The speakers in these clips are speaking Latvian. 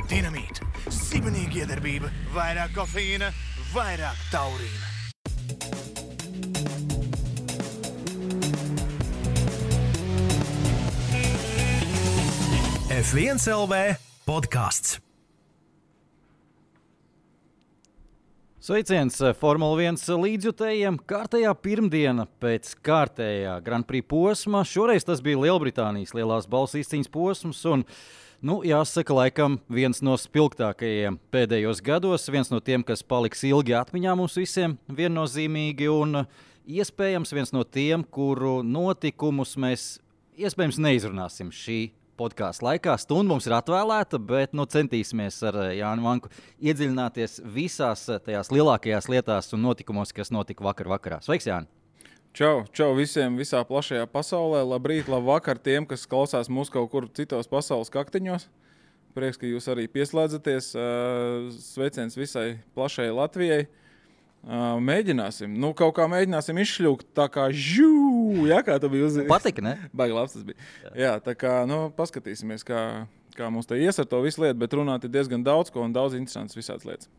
Dinamīta, sibenīga iedarbība, vairāk kofeīna, vairāk taurīna. F1 LV podcasts. Sveiciens Formula 1 līdzjutējiem. Kārtējā pirmdiena pēc kārtējā Grand Prix posma. Šoreiz tas bija Lielbritānijas lielās balsu izcīņas posms un, jāsaka, laikam viens no spilgtākajiem pēdējos gados, viens no tiem, kas paliks ilgi atmiņā mums visiem viennozīmīgi un iespējams viens no tiem, kuru notikumus mēs iespējams neizrunāsim šī podkāstu laikā. Stunda mums ir atvēlēta, bet centīsimies ar Jāni Vanku iedziļināties visās tajās lielākajās lietās un notikumos, kas notika vakarā. Sveiks, Jāni! Čau visiem visā plašajā pasaulē. Labrīt, labvakar tiem, kas klausās mūs kaut kur citos pasaules kaktiņos. Prieks, ka jūs arī pieslēdzaties. Sveiciens visai plašajai Latvijai. Mēģināsim. Kaut kā mēģināsim izšļūkt tā kā kā tu biji uzzīmējis. Patika, ne? Baigi labs tas bija. Jā, tā kā, paskatīsimies, kā mums te ies ar to visu lietu, bet runāt ir diezgan daudz ko un daudz interesants visāds lietas.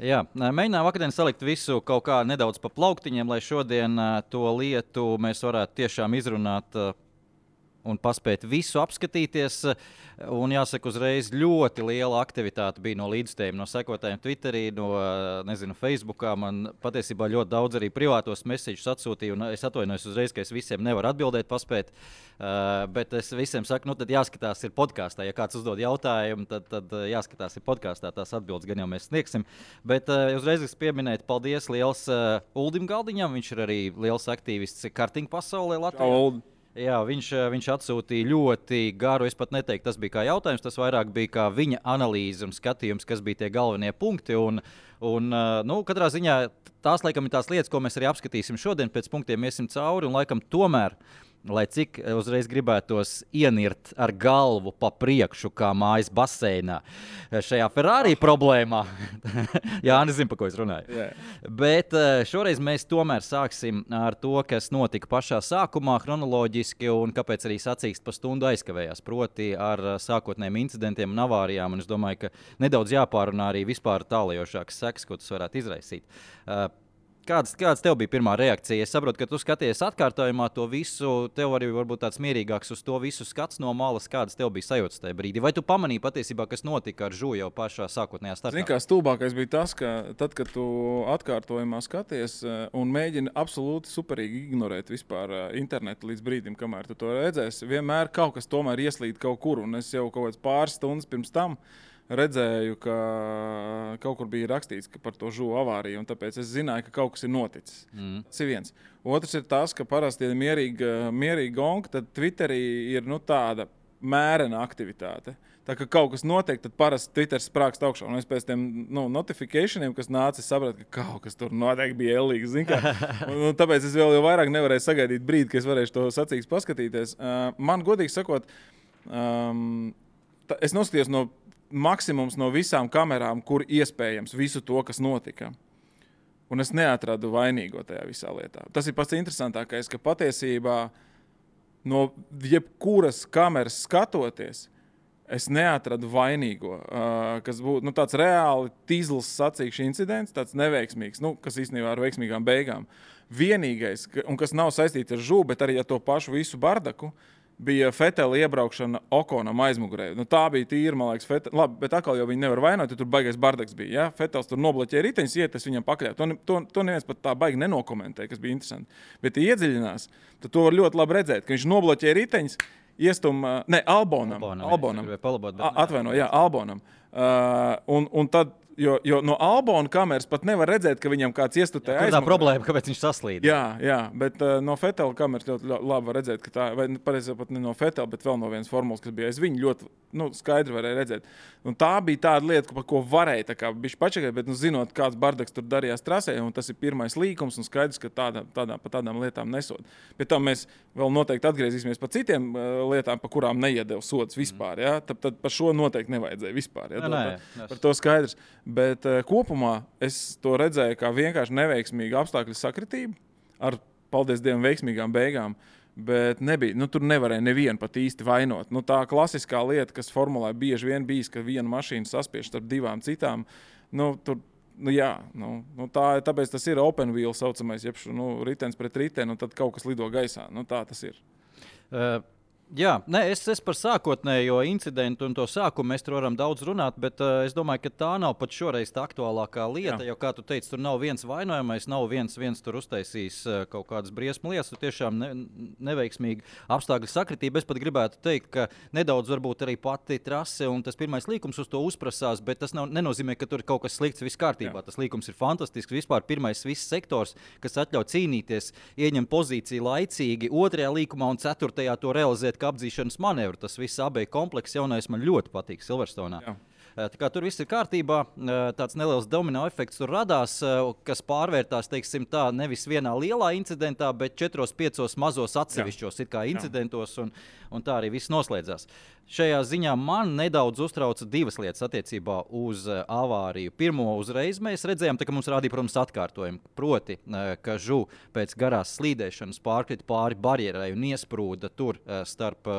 Jā, mēģinām vakardien salikt visu kaut kā nedaudz pa plauktiņiem, lai šodien to lietu mēs varētu tiešām izrunāt un paspēt visu apskatīties. Un jāsaka, uzreiz ļoti liela aktivitāte bija no līdzstējiem, no sekotājiem Twitterī, no Facebookā. Man patiesībā ļoti daudz arī privātos messēģus atsūtīja, un es atvainojos uzreiz, ka es visiem nevaru atbildēt, paspēt. Bet es visiem saku, tad jāskatās ir podkāstā. Ja kāds uzdod jautājumu, tad jāskatās ir podkāstā, tās atbildes gan jau mēs sniegsim. Bet uzreiz es pieminēju, paldies liels Uldim Galdiņam, viņš ir arī liels aktīvists karting pasaulē Latvijā. Jā, viņš atsūtīja ļoti garu, es pat neteiktu, tas bija kā jautājums, tas vairāk bija kā viņa analīze un skatījums, kas bija tie galvenie punkti. Katrā ziņā tās laikam ir tās lietas, ko mēs arī apskatīsim šodien, pēc punktiem iesim cauri un laikam tomēr, lai cik uzreiz gribētos ienirt ar galvu pa priekšu, kā mājas baseinā, šajā Ferrari problēmā. Jā, nezinu, pa ko es runāju. Yeah. Bet šoreiz mēs tomēr sāksim ar to, kas notika pašā sākumā chronoloģiski un kāpēc arī sacīkst pa stundu aizkavējās, proti ar sākotnējiem incidentiem un avārijām. Un es domāju, ka nedaudz jāpārunā arī vispār tālajošākas sekas, ko tas varētu izraisīt. Kāds tev bija pirmā reakcija? Es saprotu, ka tu skaties atkārtojumā to visu, tev arī varbūt tāds mierīgāks uz to visu skats no malas, kādas tev bija sajūtas tajā brīdī. Vai tu pamanīji patiesībā, kas notika ar Žu jau pašā sākotnējā startā? Zini, kā stulbākais bija tas, ka tad, kad tu atkārtojumā skaties un mēģini absolūti superīgi ignorēt vispār internetu līdz brīdim, kamēr tu to redzēsi, vienmēr kaut kas tomēr ieslīd kaut kur, un es jau kaut kāds pāris stundas pirms tam redzēju, ka kaut kur bija rakstīts par to Žu avāriju, un tāpēc es zināju, ka kaut kas ir noticis. Tas ir viens. Otrs ir tas, ka parasti ir mierīgi gonga, tad Twitterī ir tāda mērena aktivitāte. Tā kā kaut kas notiek, tad parasti Twitters sprākst augšā. Un es pēc tiem notificationiem, kas nāca, es sapratu, ka kaut kas tur noteikti bija ellīgs. Un tāpēc es vēl jau vairāk nevarēju sagaidīt brīdi, ka es varēšu to sacīgs paskatīties. Man godīgi sakot, es noskatījos no maksimums no visām kamerām, kur iespējams visu to, kas notika. Un es neatradu vainīgo tajā visā lietā. Tas ir pats interesantākais, ka patiesībā no jebkuras kameras skatoties, es neatradu vainīgo, kas būtu tāds reāli tīzls sacīkšs incidents, tāds neveiksmīgs, kas īstenībā ar veiksmīgām beigām. Vienīgais, un kas nav saistīts ar Žu, bet arī ar to pašu visu bardaku, bija Fetela iebraukšana Okonam aizmugurē. Tā bija tīra, man liekas, Fetela. Labi, bet atkal jau viņi nevar vainot, jo tur baigais bardaks bija. Ja? Fetels tur nobloķēja riteņus, iet, es viņam pakļauju. To neviens pat tā baigi nenokomentēja, kas bija interesanti. Bet, ja iedziļinās, tad to var ļoti labi redzēt, ka viņš nobloķēja riteņus, Albonam. Atvaino, jā, Albonam. Un tad Jo no Albona kameras pat nevar redzēt, ka viņam kāds iestutē aizmugurē. Tā problēma, kāpēc viņš saslīd. Jā, bet no Fetela kameras ļoti labi var redzēt, ka tā, vai pareizāk pat ne no Fetela, bet vēl no vienas formulas, kas bija aiz viņu, ļoti skaidri varēja redzēt. Un tā bija tāda lieta, par ko varēja tā kā bišķi pačakēt, bet zinot, kāds bardaks tur darījās trasē, un tas ir pirmais līkums, un skaidrs, ka pa tādām lietām nesod. Pēc tam mēs vēl noteikti atgriezīsimies pa citiem lietām, pa kurām neiedeva sods vispār. Ja? Tad par šo noteikti nevajadzēja vispār. Ja? Par to skaidrs. Bet kopumā es to redzēju kā vienkārši neveiksmīgu apstākļu sakritību ar, paldies Dievam, veiksmīgām beigām. Bet nebija, tur nevarēja nevienu pat īsti vainot. Tā klasiskā lieta, kas formulē bieži vien bijis, ka viena mašīna saspiež starp divām citām, tāpēc tas ir open wheel saucamais, jeb ritens pret riteni, un tad kaut kas lido gaisā. Tā tas ir. Jā, es par sākotnējo incidentu un to sākumu mēs tur varam daudz runāt, bet es domāju, ka tā nav pat šoreiz tā aktuālākā lieta, jo, kā tu teici, tur nav viens vainojamais, nav viens tur uztaisījis kaut kādas briesmu lietas, tur tiešām neveiksmīgi apstākļu sakritība. Es pat gribētu teikt, ka nedaudz varbūt arī pati trase un tas pirmais līkums uz to uzprasās, bet tas nenozīmē, ka tur ir kaut kas slikts, viss kārtībā. Tas līkums ir fantastisks, vispār pirmais viss sektors, kas atļauj cīnīties, ieņem pozīciju laicīgi, otrajā līkumā un ceturtajā to realizēt kā apdzīšanas manevru. Tas viss AB komplekss jaunais man ļoti patīk Silverstonā. Tā kā tur viss ir kārtībā, tāds neliels domino efekts tur radās, kas pārvērtās, teiksim tā, nevis vienā lielā incidentā, bet 4-5 mazos atsevišķos incidentos, un tā arī viss noslēdzās. Šajā ziņā man nedaudz uztrauca divas lietas attiecībā uz avāriju. Pirmo uzreiz mēs redzējām, ka mums rādīja, protams, atkārtojumu. Proti, ka Žu pēc garās slīdēšanas pārkrita pāri barjerai un iesprūda tur starp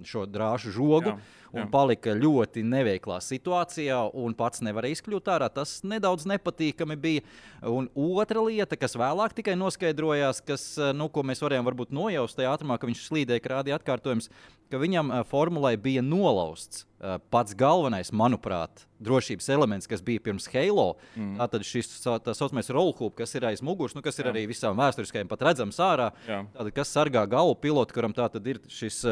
šo drāžu žogu. Un palika ļoti neveiklā situācijā un pats nevarēja izkļūt ārā. Tas nedaudz nepatīkami bija. Un otra lieta, kas vēlāk tikai noskaidrojās, ko mēs varējām varbūt nojaust tajā ātrumā, ka viņš slīdēja, ka rādīja atkārtojums, ka viņam formulai bija nolausts pats galvenais, manuprāt, drošības elements, kas bija pirms Halo. Tātad šis tā saucamais rollhoop, kas ir aiz muguras, kas ir arī visām vēsturiskajiem pat redzams ārā. Tātad, kas sargā galvu pilotu, kuram tātad ir šis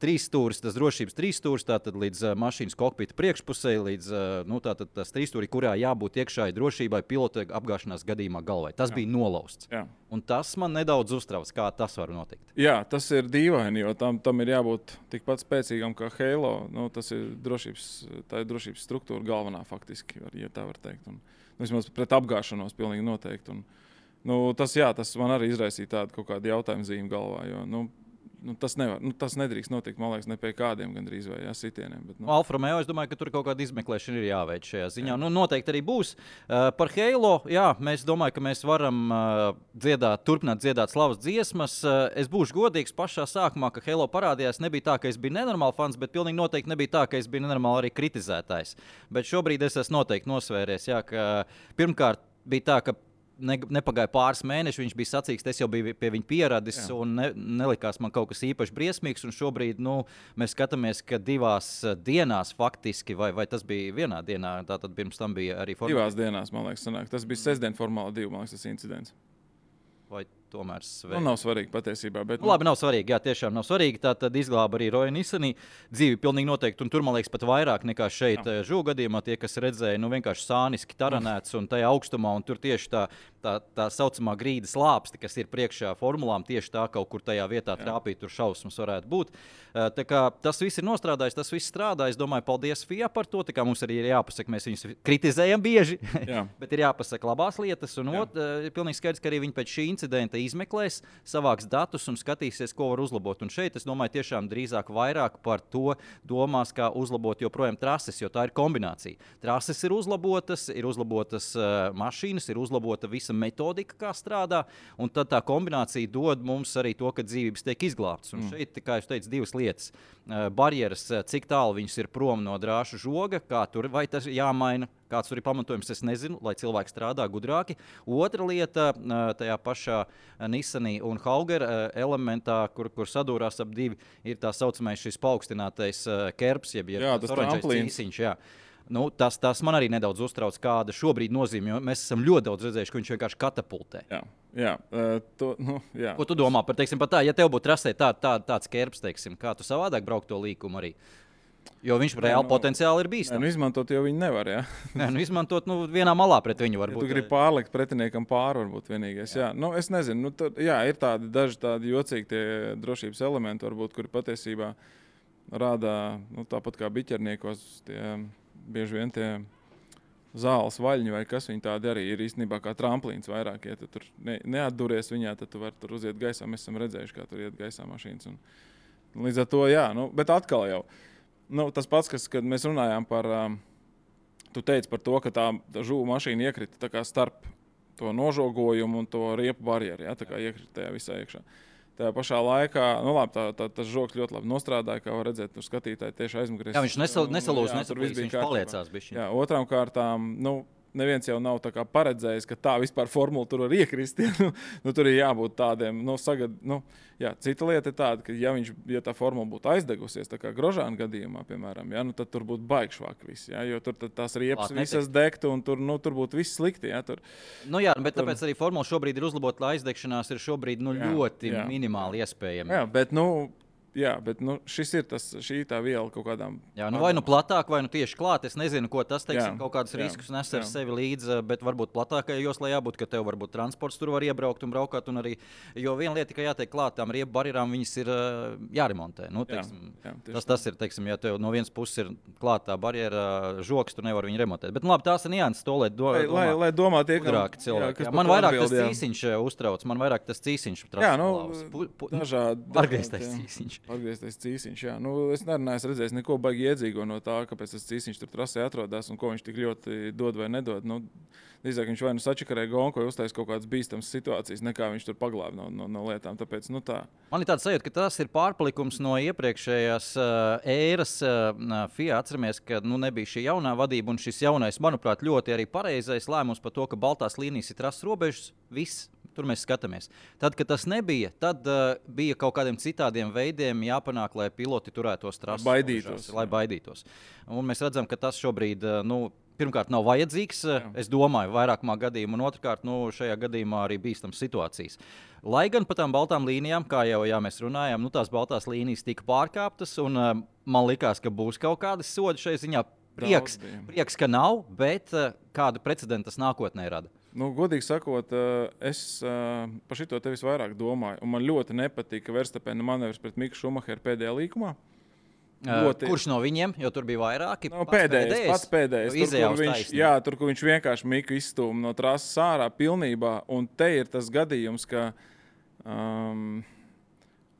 trīsstūris, tas drošības trīsstūris, tātad līdz mašīnas kokpita priekšpusē, līdz tātad tas trīsstūri, kurā jābūt iekšāji drošībai pilota apgāšanās gadījumā galvai. Tas bija nolausts. Un tas man nedaudz uztrauc, kā tas var notikt. Jā, tas ir dīvaini, jo tam ir jābūt tikpat spēcīgam kā Halo. Tas ir drošības struktūra galvenā faktiski, ja tā var teikt. Un, vismaz pret apgāšanos pilnīgi noteikti. Un, tas man arī izraisīja tādu kaut kādu jautājumu zīmi galvā, jo tas nedrīkst notikt, man liekas, ne pie kādiem gandrīz vai sitieniem. Bet, Alfa Romeo, es domāju, ka tur kaut kāda izmeklēšana ir jāveic šajā ziņā. Noteikti arī būs. Par Halo, mēs domāju, ka mēs varam turpināt dziedāt slavas dziesmas. Es būšu godīgs pašā sākumā, ka Halo parādījās. Nebija tā, ka es biju nenormāli fans, bet pilnīgi noteikti nebija tā, ka es biju nenormāli arī kritizētājs. Bet šobrīd es esmu noteikti nosvēries, ka pirmkārt bija tā, ka nepagāja pāris mēneši, viņš bija sacīks, es jau biju pie viņa pieradis un nelikās man kaut kas īpaši briesmīgs. Un šobrīd mēs skatāmies, ka 2 dienās faktiski, vai tas bija vienā dienā, tātad pirms tam bija arī formāla. 2 dienās, man liekas, sanāk. Tas bija sestdien formāla 2, man liekas, tas incidents. Vai tomēr svarīgi? Nav svarīgi patiesībā. Bet, labi, nav svarīgi, jā, tiešām nav svarīgi. Tā tad izglāba arī Roja Nissanī dzīvi pilnīgi noteikti, un tur, man liekas, pat vairāk nekā šeit Žu gadījumā. Tie, kas redzēja, vienkārši sāniski taranēts un tajā augstumā, un tur tieši tā saucamā grīdas lāpsti, kas ir priekšā formulām, tieši tā kaut kur tajā vietā trāpīt, tur šausmas varētu būt. Tā kā tas viss ir nostrādājis, tas viss strādā. Es domāju, paldies FIA par to. Tā kā mums arī ir jāpasaka, mēs viņus kritizējam bieži, bet ir jāpasaka labās lietas. Un ir pilnīgi skaidrs, ka arī viņi pēc šī incidenta izmeklēs, savāks datus un skatīsies, ko var uzlabot. Un šeit, es domāju, tiešām drīzāk vairāk par to domās, kā uzlabot joprojām trases, jo tā ir kombinācija. Trases ir uzlabotas mašīnas, ir uzlabota visa metodika, kā strādā, un tad tā kombinācija dod mums arī to, ka dzīvības tiek izglābtas. Un šeit, kā es teicu, 2 lietas. Barjeras, cik tālu viņas ir prom no drāšu žoga, kā tur, vai tas jāmaina, kāds tur ir pamatojums, es nezinu, lai cilvēki strādā gudrāki. Otra lieta, tajā pašā Nissanī un Hauger elementā, kur sadūrās ap 2, ir tā saucamais šis paaugstinātais kerbs, jeb tas oranžais cīsiņš, tas man arī nedaudz uztrauc, kāda šobrīd nozīme, jo mēs esam ļoti daudz redzējuši, ka viņš vienkārši katapultē. Jā. Ko tu domā par tā, ja tev būtu trasē tāds kerbs, teiksim, kā tu savādāk braukt to līkumu arī? Jo viņš reāli potenciāli ir bīstams. Izmantot jau viņi nevar, jā. Izmantot vienā malā pret viņu varbūt. Ja tu gribi pārlikt pretiniekam pāri, varbūt vienīgais. Jā. Es nezinu, ir daži tādi jocīgi tie drošības elementi, varbūt, kuri patiesībā rādā, tāpat kā biķerniekos, bieži vien tie zāles vaļņi vai kas viņi tādi arī ir īstenībā kā tramplīns vairāk. Ja tu tur neatduries viņā, tad tu vari tur uziet gaisā. Mēs esam redzējuši, kā tur iet gaisā mašīnas. Un līdz ar to, jā, bet atkal jau. Tas pats, kad mēs runājām par, tu teici par to, ka tā žuvu mašīna iekrita tā kā starp to nožogojumu un to riepu barjeru, ja, tā kā iekrita tajā visā iekšā. Tajā pašā laikā, tas žogs ļoti labi nostrādāja, kā var redzēt, tur skatītāji tieši aizmugurēs. Jā, viņš nesalūz, viņš paliecās bišķiņ. Jā, otrām kārtām, neviens jau nav tā kā paredzējis, ka tā vispār formula tur var iekrist. Tur ir jābūt tādiem, cita lieta ir tāda, ka ja tā formula būtu aizdegusies, tā kā Grožāna gadījumā, piemēram, tad tur būtu baigšvāk viss, jo tur tās riepas visas degtu un tur būtu viss slikti. Tur. Jā, bet tāpēc arī formula šobrīd ir uzlabota, lai aizdegšanās ir šobrīd ļoti minimāli iespējama. Jā, bet šis ir šī tā viela kaut kādām. Jā, vai platāk, vai tieši klāt. Es nezinu, ko tas kaut kādus riskus nes ar sevi līdzi, bet varbūt platākajā joslā jābūt, ka tev varbūt transports tur var iebraukt un braukāt. Jo viena lieta, ka jātiek klāt tām riepu barjerām, viņas ir jāremontē. Tas ir, ja tev no vienas puses ir klātā barjera žoks, tu nevar viņu remontēt. Bet labi, tās ir nianses, to lai domā tie, cilvēki. Man vairāk tas cīsiņš uztrauc, man vairāk tas cīsiņš atgrieztais cīsiņš. Atgrieztais cīsiņš, jā. Es nerunāju, redzēju neko baigi iedzīgo no tā, kāpēc tas cīsiņš tur trasē atrodas un ko viņš tik ļoti dod vai nedod. Drīzāk viņš vai sačakarē gonku vai uztais kaut kādas bīstamas situācijas, nekā viņš tur paglāb no lietām. Tāpēc, tā. Man ir tāds sajūta, ka tas ir pārpalikums no iepriekšējās ēras FIA. Atceramies, ka nebija šī jaunā vadība un šis jaunais, manuprāt, ļoti arī pareizais lēmums par to, ka baltās līnijas ir trases robežas. Viss. Tur mēs skatāmies. Tad, kad tas nebija, tad bija kaut kādiem citādiem veidiem jāpanāk, lai piloti turētos trases, lai baidītos. Un mēs redzam, ka tas šobrīd, pirmkārt, nav vajadzīgs. Jā. Es domāju, vairākumā gadījumā, un otrkārt, šajā gadījumā arī bīstams situācijas. Lai gan pa tām baltām līnijām, kā jau mēs runājām, tās baltās līnijas tika pārkāptas, un man likās, ka būs kaut kādi sodi šai ziņā. Prieks, ka nav, bet kādu precedentu tas nākotnē rada. Godīgi sakot, es par šito tevis vairāk domāju. Un man ļoti nepatika Verstapena manevrs pret Miku Šumacheru pēdējā līkumā. Kurš no viņiem? Jo tur bija vairāki. Pats pēdējais. Tur, kur viņš vienkārši Miku izstūma no trases ārā pilnībā. Un te ir tas gadījums, ka...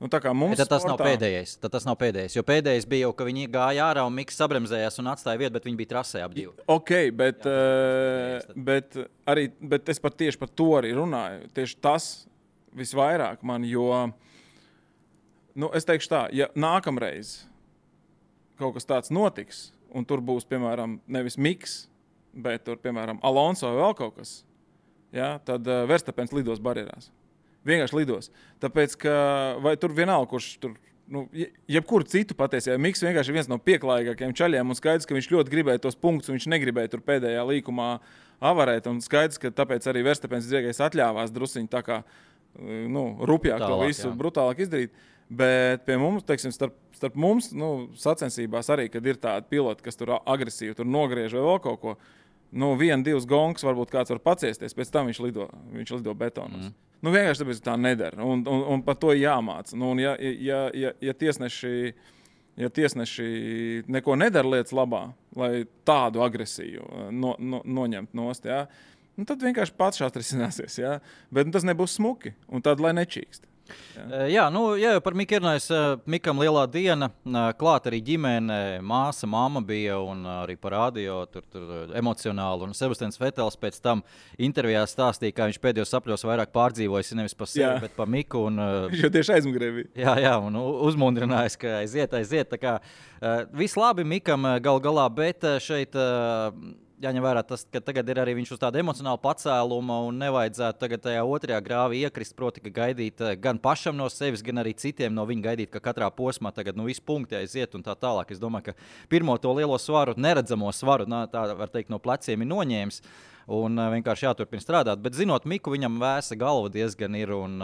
Tad tas nav pēdējais. Jo pēdējais bija jau, ka viņi gāja ārā un Miks sabremzējās un atstāja vietu, bet viņi bija trasē ap divu. Bet es tieši par to arī runāju. Tieši tas visvairāk man, jo es teikšu tā, ja nākamreiz kaut kas tāds notiks, un tur būs, piemēram, nevis Miks, bet tur, piemēram, Alonso vai vēl kaut kas, tad Verstapens lidos barjerās. Vienkārši lidos. Tāpēc, ka vai tur vienalga, kurš tur, jebkuru citu patiesībā, Miks vienkārši ir viens no pieklājīgākajiem čaļiem un skaidrs, ka viņš ļoti gribēja tos punktus un viņš negribēja tur pēdējā līkumā avarēt un skaidrs, ka tāpēc arī Verstapens dziegais atļāvās drusiņi tā kā, rupjāk to visu brutālāk izdarīt. Bet pie mums, teiksim, starp mums, sacensībās arī, kad ir tādi piloti, kas tur agresīvi tur nogriež vai vēl kaut ko, 1-2 gongs varbūt kāds var paciesties, pēc tam viņš lido betonos. Vienkārši tāpēc tā nedara, un par to jāmāca. Ja tiesneši neko nedara lietas labā, lai tādu agresiju noņemt nost, tad vienkārši pats atrisināsies. Bet tas nebūs smuki, un tad lai nečīkst. Jā, par Miku runājot, Mikam lielā diena, klāt arī ģimene, māsa, mamma bija un arī parādīja tur emocionāli. Un Sebastians Vetels pēc tam intervijā stāstīja, kā viņš pēdējos sapļos vairāk pārdzīvojis nevis par sevi, bet par Miku. Viņš jau tieši aizmugurē bija. Jā, un uzmundrinājis, ka aiziet. Tā kā viss labi Mikam gal galā, bet šeit... Jāņem vērā tas, ka tagad ir arī viņš uz tāda emocionāla pacēluma un nevajadzētu tagad tajā otrajā grāvī iekrist, proti, ka gaidīt gan pašam no sevis, gan arī citiem no viņa gaidīt, ka katrā posmā tagad visi punkti aiziet un tā tālāk. Es domāju, ka pirmo to lielo svaru, neredzamo svaru, tā var teikt, no pleciem ir noņēmis. un vienkārši jāturpina strādāt. Bet zinot Miku, viņam vēsa galva diezgan ir, un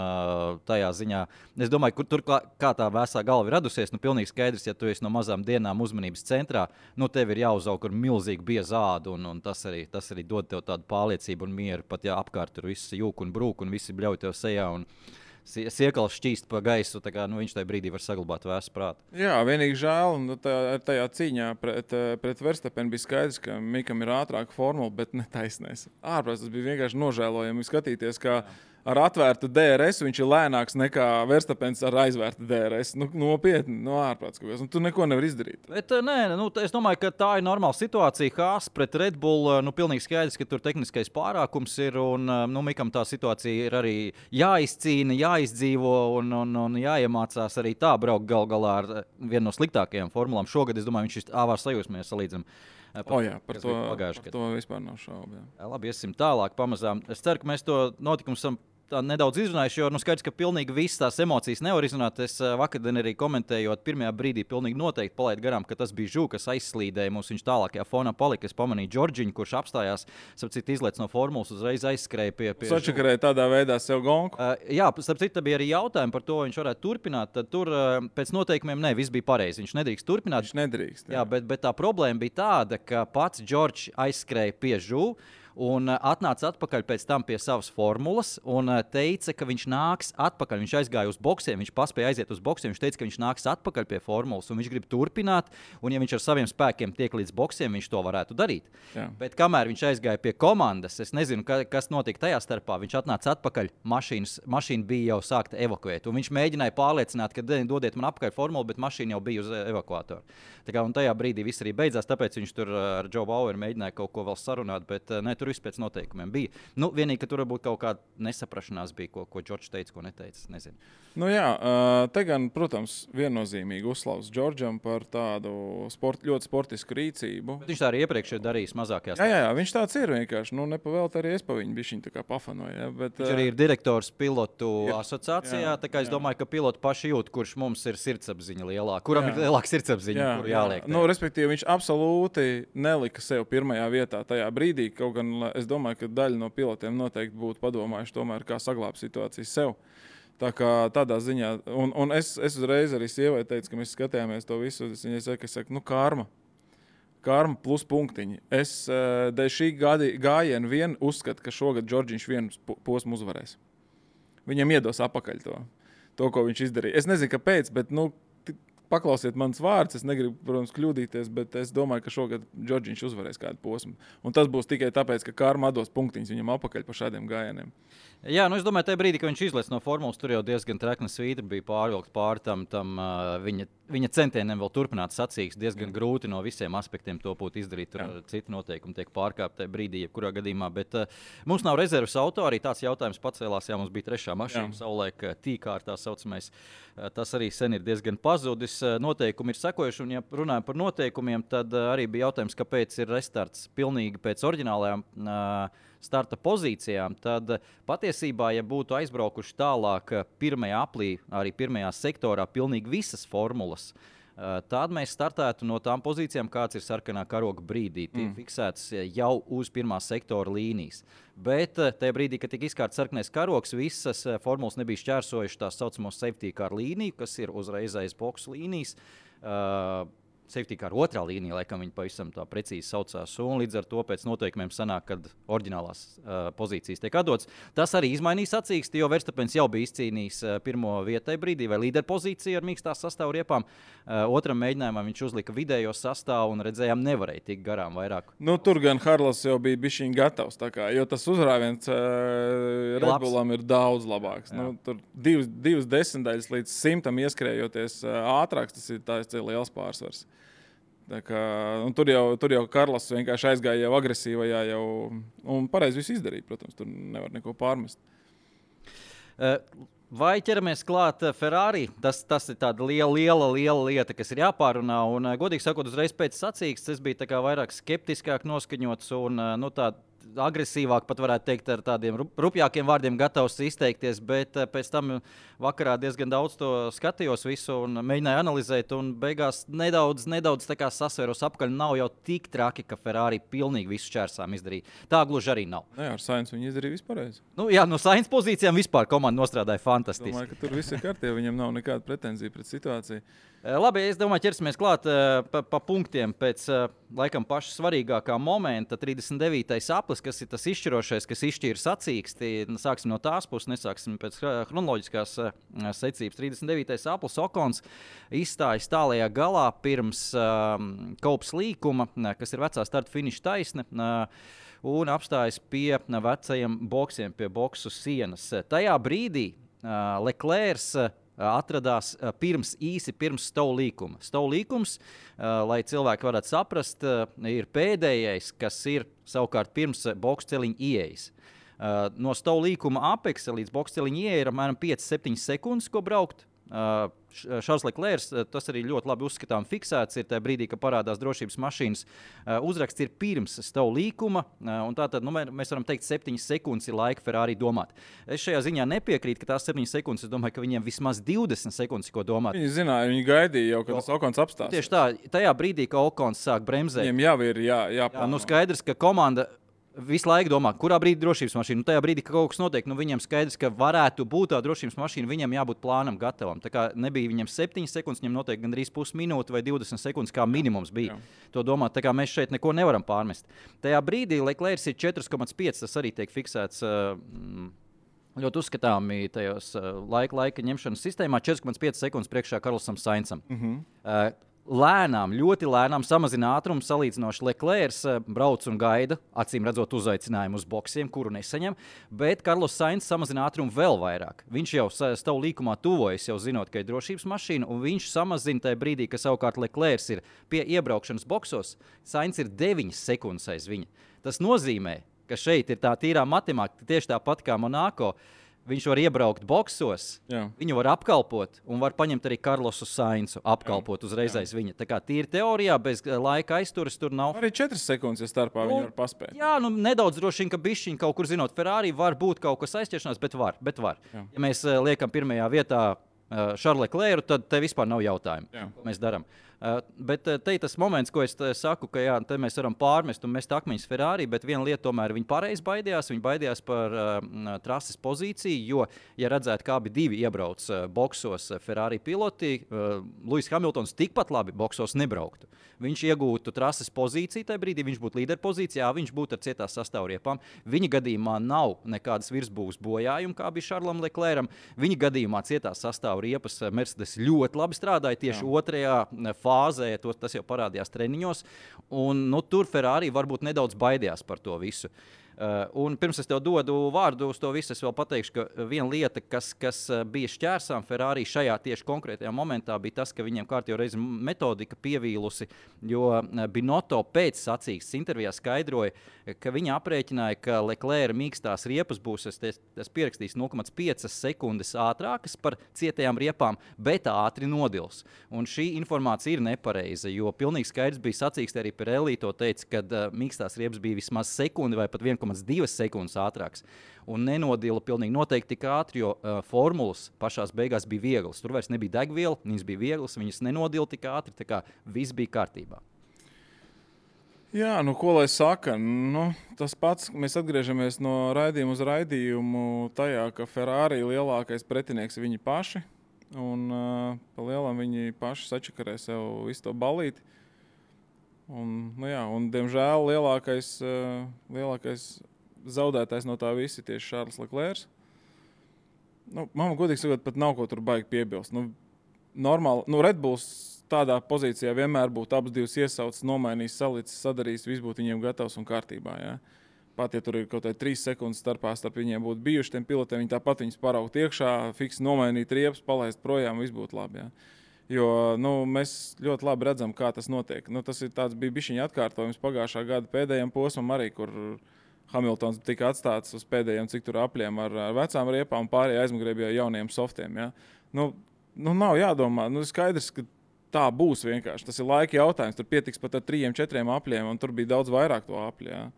tajā ziņā, es domāju, kur tur kā tā vēsā galva ir radusies, nu pilnīgi skaidrs, ja tu esi no mazām dienām uzmanības centrā, nu tev ir jāuzaug ar milzīgu biezādu, un tas arī dod tev tādu pārliecību un mieru, pat ja apkārt tur viss jūk un brūk, un visi bļauj tev sejā, un siekals šķīst pa gaisu, tā kā viņš tajā brīdī var saglabāt vēsu prātu. Jā, vienīgi žēl, un tajā cīņā pret Verstapenu bija skaidrs, ka Mikam ir ātrāka formula, bet ne taisnēs. Ārprāt, tas bija vienkārši nožēlojami skatīties, kā ar atvērtu DRS viņš ir lēnāks nekā Verstapens ar aizvērtu DRS. Nu, nopietni, no ārprāts, un tu neko nevar izdarīt. Bet es domāju, ka tā ir normāla situācija. Haas pret Red Bull, pilnīgi skaidrs, ka tur tehniskais pārākums ir, un Mikam tā situācija ir arī jāizcīna, jāizdzīvo un jāiemācās arī tā braukt gal galā ar vienu no sliktākajām formulām. Šogad, es domāju, viņš ir āvār sajūsmē salīdzinām. Par to vispār nav šaubu. Labi, iesim tālāk pamazām. Es ceru, ka mēs to notikumu esam nedaudz izrunājuši, jo skaidrs, ka pilnīgi visas tās emocijas nevar izrunāt. Es vakardien arī komentējot, pirmajā brīdī pilnīgi noteikti palaidu garām, ka tas bija Žū, kas aizslīdēja mums. Viņš tālākajā fonā palika. Es pamanīju Džordžiņu, kurš apstājās, sapcīt izlēc no formulas, uzreiz aizskrēja pie Sačakarēja tādā veidā sev gonku. Jā, sapcīt, bija arī jautājumi par to, vai viņš varētu turpināt. Tad tur pēc noteikumiem viss bija pareizi. Viņš nedrīkst turpināt. Viņš nedrīkst. Jā, bet tā problēma bija tāda, ka pats Džordžs aizskrēja pie Žū un atnāca atpakaļ pēc tam pie savas formulas un teica, ka viņš nāks atpakaļ. Viņš aizgāja uz boksiem, viņš paspēja aiziet uz boksiem, viņš teica, ka viņš nāks atpakaļ pie formulas un viņš grib turpināt, un ja viņš ar saviem spēkiem tiek līdz boksiem, viņš to varētu darīt. Jā. Bet kamēr viņš aizgāja pie komandas, es nezinu, kas notika tajā starpā, viņš atnāca atpakaļ, mašīna bija jau sākta evakuēt, un viņš mēģināja pārliecināt, ka dodiet man apakaļ formulu, bet mašīna jau bija uz evakuātoru. Tā kā, un tajā brīdī viss arī beidzās, tāpēc viņš tur ar Joe Baueru mēģināja kaut ko vēl sarunāt, bet tur viss pēc noteikumiem bija. Nu, vienīgi, ka tur varbūt kaut kāda nesaprašanās bija, ko Džordžs teica, ko neteica, nezinu. Nu jā, te gan, protams, viennozīmīgi uzslavs Džordžam par tādu ļoti sportisku rīcību. Bet viņš tā arī iepriekš ir darījis mazākajās. Jā, viņš tāds ir vienkārši. Nu, nepavēlt arī es pa viņu bišķiņ tā kā pafanoju. Ja, bet, viņš arī ir direktors pilotu asociācijā, tā kā es domāju, ka piloti paši jūt, kurš mums ir sirdsapziņa lielāka, kuram ir lielāka sirdsapziņa, kuru jāliek. Nu, respektīvi, viņš absolūti nelika sev pirmajā vietā tajā brīdī, kaut gan es domāju, ka daļa no pilotiem noteikti būtu padomājuši tomēr, kā saglābt situāciju sev. Tā kā tādā ziņā, un es uzreiz arī sievai teicu, ka mēs skatījāmies to visu, viņai saka, karma plus punktiņi. Es dēļ šī gājiena vien uzskatu, ka šogad Džordžiņš vienu posmu uzvarēs. Viņam iedos apakaļ to, ko viņš izdarīja. Es nezinu, kāpēc, bet, paklausiet manas vārdus, es negribu, protams, kļūdīties, bet es domāju, ka šogad Džordžiņš uzvarēs kādu posmu. Un tas būs tikai tāpēc, ka karma dos punktiņus viņam apakaļ par šādiem gājieniem. Jā, es domāju, tajā brīdī, kad viņš izlaiž no formulas, tur jau diezgan trekna svītra bija pārvilkt pāri tam viņa centieniem vēl turpināt sacīkst. Diezgan grūti no visiem aspektiem to būtu izdarīt. Tur citi noteikumi tiek pārkāpti tajā brīdī, jebkurā gadījumā. Bet mums nav rezerves auto, arī tāds jautājums pacēlās. Jā, mums bija trešā mašīna, savulaik tīkārtā saucamais. Tas arī sen ir diezgan pazudis. Noteikumi ir sekojuši, un ja runājam par noteikumiem, tad arī bija jautājums, kāpēc ir restarts pilnīgi pēc oriģinālajām starta pozīcijām, tad patiesībā, ja būtu aizbraukuši tālāk pirmajā aplī, arī pirmajā sektorā, pilnīgi visas formulas, tad mēs startētu no tām pozīcijām, kāds ir sarkanā karoga brīdī. Tiek fiksēts jau uz pirmā sektora līnijas. Bet tajā brīdī, kad tika izkārts sarkanais karogs, visas formulas nebija šķērsojuši tās saucamos safety car līniju, kas ir uzreiz aiz boksu līnijas. Safety car otrā līnija, laikam viņi pavisam tā precīzi saucās, un līdz ar to pēc noteikumiem sanāk, kad oriģinālās pozīcijas tiek atdotas. Tas arī izmainīja sacīksti, jo Verstapens jau bija izcīnījis pirmo vietai brīdī vai līderpozīciju ar mīkstās sastāvu riepām. Otram mēģinājumā viņš uzlika vidējo sastāvu un redzējām nevarēja tikt garām vairāk. Nu, tur gan Harlas jau bija bišķiņ gatavs, tā kā, jo tas uzrāviens Red Bullam ir daudz labāks. Nu, tur divas desmitaļas līdz 100 ieskrējoties ātrāks, tas ir liels pārsvars. Kā, tur jau Karlas vienkārši aizgāja jau agresīvajā un pareizi visu izdarīja, protams, tur nevar neko pārmest. Vai ķeramies klāt Ferrari? Tas ir tāda liela lieta, kas ir jāpārunā, un godīgi sakot, uzreiz pēc sacīkstes es biju tā kā vairāk skeptiskāk noskaņots, un agresīvāk, pat varētu teikt ar tādiem rupjākiem vārdiem gatavs izteikties, bet pēc tam vakarā diezgan daudz to skatījos visu un mēģināju analizēt, un beigās nedaudz tā kā sasvēros apkaļ, nav jau tik traki, ka Ferrari pilnīgi visu šķērsām izdarīja. Tā gluži arī nav. Jā, ar Sainz viņi izdarīja vispārreiz. Nu, jā, no Sainz pozīcijām vispār komanda nostrādāja fantastiski. Domāju, ka tur viss ir kārtībā, viņam nav nekāda pretenzija pret situāciju. Labi, es domāju, ķersimies klāt pa punktiem pēc laikam paša svarīgākā momenta. 39. aplis, kas ir tas izšķirošais, kas izšķīra sacīksti. Sāksim no tās puses, nesāksim pēc chronoloģiskās secības. 39. aplis Okons izstājas tālajā galā pirms Kaups līkuma, kas ir vecā starta finiša taisne, un apstājas pie vecajiem boksiem, pie boksu sienas. Tajā brīdī Leclercs atradās īsi pirms Stow līkuma. Stow līkums, lai cilvēki varētu saprast, ir pēdējais, kas ir savukārt pirms boksu celiņa ieejas. No Stow līkuma apeksa līdz boksu celiņa ieeja ir apmēram 5-7 sekundes, ko braukt. Šarls Leclercs, tas arī ļoti labi uzskatām fiksēts, ir tajā brīdī, kad parādās drošības mašīnas. Uzraksts ir pirms Stow līkuma, un tātad mēs varam teikt 7 sekundes ir laika Ferrari domāt. Es šajā ziņā nepiekrītu, ka tās 7 sekundes, es domāju, ka viņiem vismaz 20 sekundes, ko domāt. Viņi zināja, viņi gaidīja jau, kad tas Okons apstās. Tieši tā, tajā brīdī, kad Okons sāk bremzēt. Viņiem jau ir jāplāno. Skaidrs, ka komanda visu laiku domā, kurā brīdī drošības mašīna. Tajā brīdī, kad kaut kas notiek, viņam skaidrs, ka varētu būt tā drošības mašīna, viņam jābūt plānam gatavam. Tā kā nebija viņam 7 sekundes, viņam noteikti gandrīz pusminūte vai 20 sekundes, kā minimums bija. To domāt, tā kā mēs šeit neko nevaram pārmest. Tajā brīdī Leclercs ir 4,5, tas arī tiek fiksēts ļoti uzskatāmi tajos laika ņemšanas sistēmā, 4,5 sekundes priekšā Karlosam Sainzam. Lēnām, ļoti lēnām samazina ātrumu, salīdzinoši Leclercs brauc un gaida, acīm redzot uzaicinājumu uz boksiem, kuru nesaņem, bet Karlos Sainz samazina ātrumu vēl vairāk. Viņš jau Stow līkumā tuvojas, jau zinot, ka ir drošības mašīna, un viņš samazina tajā brīdī, ka savukārt Leclercs ir pie iebraukšanas boksos, Sainz ir 9 sekundes aiz viņa. Tas nozīmē, ka šeit ir tā tīrā matemātika, tieši tāpat kā Monako. Viņš var iebraukt boksos, viņu var apkalpot un var paņemt arī Karlosu Sainzu, apkalpot uzreiz aiz viņa. Tā kā tīri teorijā, bez laika aizturas tur nav. Arī 4 sekundes, ja starpā viņi var paspēt. Jā, nedaudz droši vien, ka bišķiņ kaut kur zinot, Ferrari var būt kaut kas aizķeršanās, bet var. Ja mēs liekam pirmajā vietā Šarlu Leclercu, tad te vispār nav jautājumu, ko mēs darām. Bet te ir tas moments, ko es saku, ka te mēs varam pārmest un mest akmeņus Ferrari, bet viena lieta tomēr viņi pareizi baidījās. Viņi baidījās par trases pozīciju, jo, ja redzētu, kā abi divi iebrauc boksos Ferrari piloti, Lewis Hamiltons tikpat labi boksos nebrauktu. Viņš iegūtu trases pozīciju tajā brīdī, viņš būtu līderpozīcijā, viņš būtu ar cietās sastāvriepām. Viņa gadījumā nav nekādas virsbūves bojājuma, kā bija Šarlam Leclercam. Viņa gadījumā cietās sastāvriepas Mercedes ļoti labi strādāja tieši otrajā fāzē, tas jau parādījās treniņos, un tur Ferrari varbūt nedaudz baidījās par to visu. Un pirms es tev dodu vārdu uz to visu, es vēl pateikšu, ka viena lieta, kas bija šķērsām Ferrari šajā tieši konkrētajā momentā, bija tas, ka viņiem kārtīgi reizi metodika pievīlusi, jo Binotto pēc sacīkstes intervijā skaidroja, ka viņi aprēķināja, ka Leclerca mīkstās riepas būs, es pierakstīju 0,5 sekundes ātrākas par cietajām riepām, bet ātri nodils. Un šī informācija ir nepareiza, jo pilnīgi skaidrs bija sacīkste, arī Pirelli to teica, kad mīkstās riepas bija vismaz sekundi vai pat 1,2 sekundes ātrāks. Un nenodila pilnīgi noteikti tik ātri, jo formulas pašās beigās bija vieglas. Tur vairs nebija degviela, viņas bija vieglas, viņas nenodila tik ātri, tā kā viss bija kārtībā. Jā, ko lai saka? Tas pats, mēs atgriežamies no raidījuma uz raidījumu tajā, ka Ferrari lielākais pretinieks ir viņi paši. Un pa lielam viņi paši sačakarē sev visu to balīti. Un diemžēl lielākais zaudētājs no tā visa ir tieši Šarls Leclercs. Man godīgi sakot, pat nav ko tur baigi piebilst. Normāli, Red Bulls tādā pozīcijā vienmēr būtu abas divas iesaucis, nomainījis, salicis, sadarījis, viss būtu viņiem gatavs un kārtībā. Ja? Pat, ja tur ir kaut kādā 3 sekundes starp viņiem būtu bijuši tiem pilotiem, viņi tāpat viņus paraugt iekšā, fiksi nomainīt riepas, palaist projām, viss būtu labi. Ja? Jo mēs ļoti labi redzam, kā tas notiek. Tas bija bišķiņa atkārtojums pagājušā gada pēdējiem posmam arī, kur Hamiltons tika atstāts uz pēdējiem, cik tur apļiem ar vecām riepām, pārējie aizmugurē bija jauniem softiem. Ja? Nav jādomā, skaidrs, ka tā būs vienkārši. Tas ir laika jautājums. Tur pietiks pat ar 3-4 apļiem, un tur bija daudz vairāk to apļu. Ja?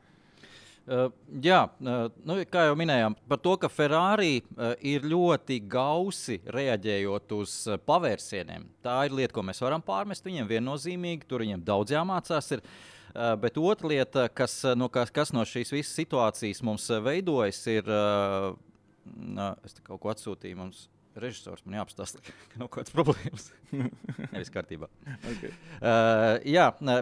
Kā jau minējām, par to, ka Ferrari ir ļoti gausi reaģējot uz pavērsieniem. Tā ir lieta, ko mēs varam pārmest viņiem viennozīmīgi, tur viņiem daudz jāmācās. Bet otra lieta, kas no šīs visas situācijas mums veidojas, ir, es te kaut ko atsūtīju mums. Režisors man jāapstāsta, ka nav kādas problēmas. Nevis kārtībā. Okay.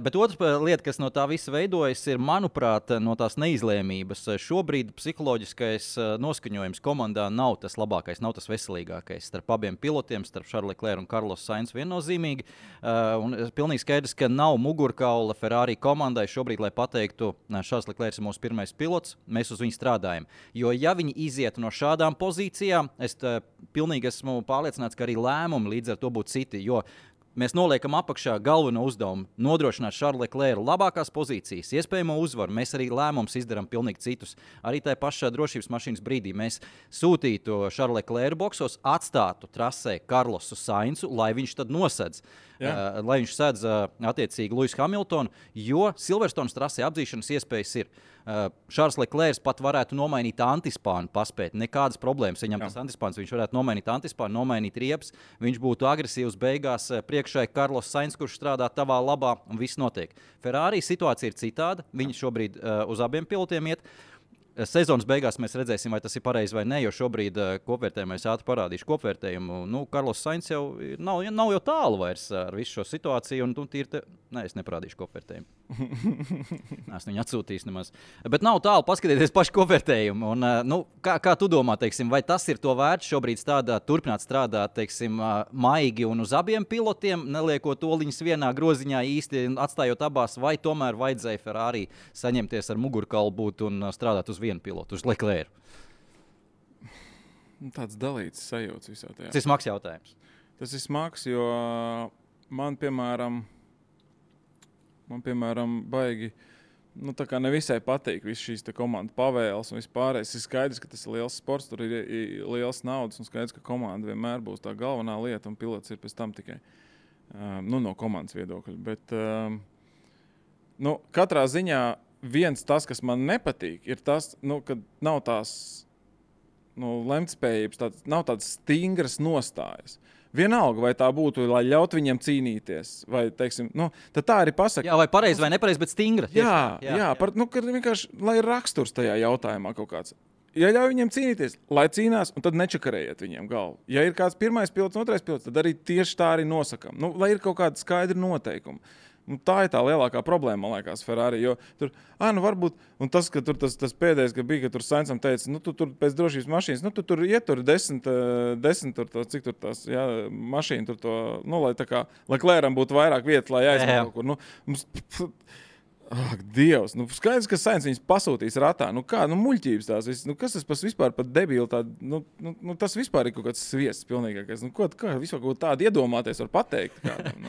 Bet otra lieta, kas no tā visa veidojas, ir, manuprāt, no tās neizlēmības. Šobrīd psiholoģiskais noskaņojums komandā nav tas labākais, nav tas veselīgākais. Starp abiem pilotiem, starp Charles Leclerc un Carlos Sainz viennozīmīgi. Un pilnīgi skaidrs, ka nav mugurkaula Ferrari komandai šobrīd, lai pateiktu, Charles Leclerc ir mūsu pirmais pilots, mēs uz viņu strādājam. Jo ja viņi iziet no šādām pozīcijām, es pilnīgi esmu pārliecināts, ka arī lēmumi līdz ar to būtu citi, jo mēs noliekam apakšā galveno uzdevumu nodrošināt Charles Leclerc labākās pozīcijas, iespējamo uzvaru. Mēs arī lēmumus izdarām pilnīgi citus. Arī tajā pašā drošības mašīnas brīdī mēs sūtītu Charles Leclerc boksos, atstātu trasē Carlosu Sainzu, lai viņš tad nosedz. Lai viņš sedz attiecīgi Lewisu Hamiltonu, jo Silverstones trasē apdzīšanas iespējas ir. Charles Leclerc pat varētu nomainīt antispānu, paspēt. Nekādas problēmas. Viņam tas antispāns, viņš varētu nomainīt antispānu, nomainīt riepas. Viņš būtu agresīvs beigās priekšai Carlos Sainz, kurš strādā tavā labā, un viss notiek. Ferrari situācija ir citāda. Viņi šobrīd uz abiem pilotiem iet. Sezonas beigās mēs redzēsim, vai tas ir pareizi vai nē, jo šobrīd kopvērtējumā es ātri parādīšu kopvērtējumu. Carlos Sainz jau nav jau tālu vairs ar visu šo situāciju, un es neparādīšu kopvērtējumu. Esmu viņu atsūtījis nemaz. Bet nav tālu paskatieties pašu kopvērtējumu. Kā tu domā, teiksim, vai tas ir to vērts šobrīd turpināt strādāt, teiksim, maigi un uz abiem pilotiem, neliekot oliņus vienā groziņā īsti atstājot abās, vai tomēr vajadzēja Ferrari saņemties ar mugurkaulu būt un strādāt uz vienu pilotu, uz Leclerc? Tāds dalīts sajūts visā tajā. Tas ir smags jautājums. Tas ir smags, jo man, piemēram, baigi, tā kā nevisai patīk visas šīs komandu pavēles un vispārējais. Ir skaidrs, ka tas ir liels sports, tur ir liels naudas un skaidrs, ka komanda vienmēr būs tā galvenā lieta un pilots ir pēc tam tikai no komandas viedokļa. Bet katrā ziņā viens tas, kas man nepatīk, ir tas, ka nav tās lemtspējības, nav tādas stingras nostājas. Vienalga, vai tā būtu, lai ļaut viņiem cīnīties, vai, teiksim, tad tā arī pasaka. Jā, vai pareizi vai nepareizi, bet stingra. Kad vienkārši, lai ir raksturs tajā jautājumā kaut kāds. Ja ļauj viņiem cīnīties, lai cīnās, un tad nečakarējiet viņiem galvu. Ja ir kāds pirmais pilots, otrais pilots, tad arī tieši tā arī nosakam. Lai ir kaut kāda skaidra noteikuma. Tā ir tā lielākā problēma, man liekas, Ferrari. Jo tur, varbūt, un tas, ka tur tas pēdējais, ka bija, ka tur Sainzam teica, tu tur pēc drošības mašīnas, tu tur ietur 10 tur to, cik tur tās, mašīna tur to, lai tā kā, lai Leclercam būtu vairāk vietas, lai aizmēr kaut kur, Ak, Dievs, skaidrs, ka Sainz viņus pasūtīs ratā. Muļķības tās viss. Kas tas vispār par debilu tādu? Tas vispār ir kaut kāds sviests pilnīgākais. Kā vispār kaut tādu iedomāties var pateikt kādam?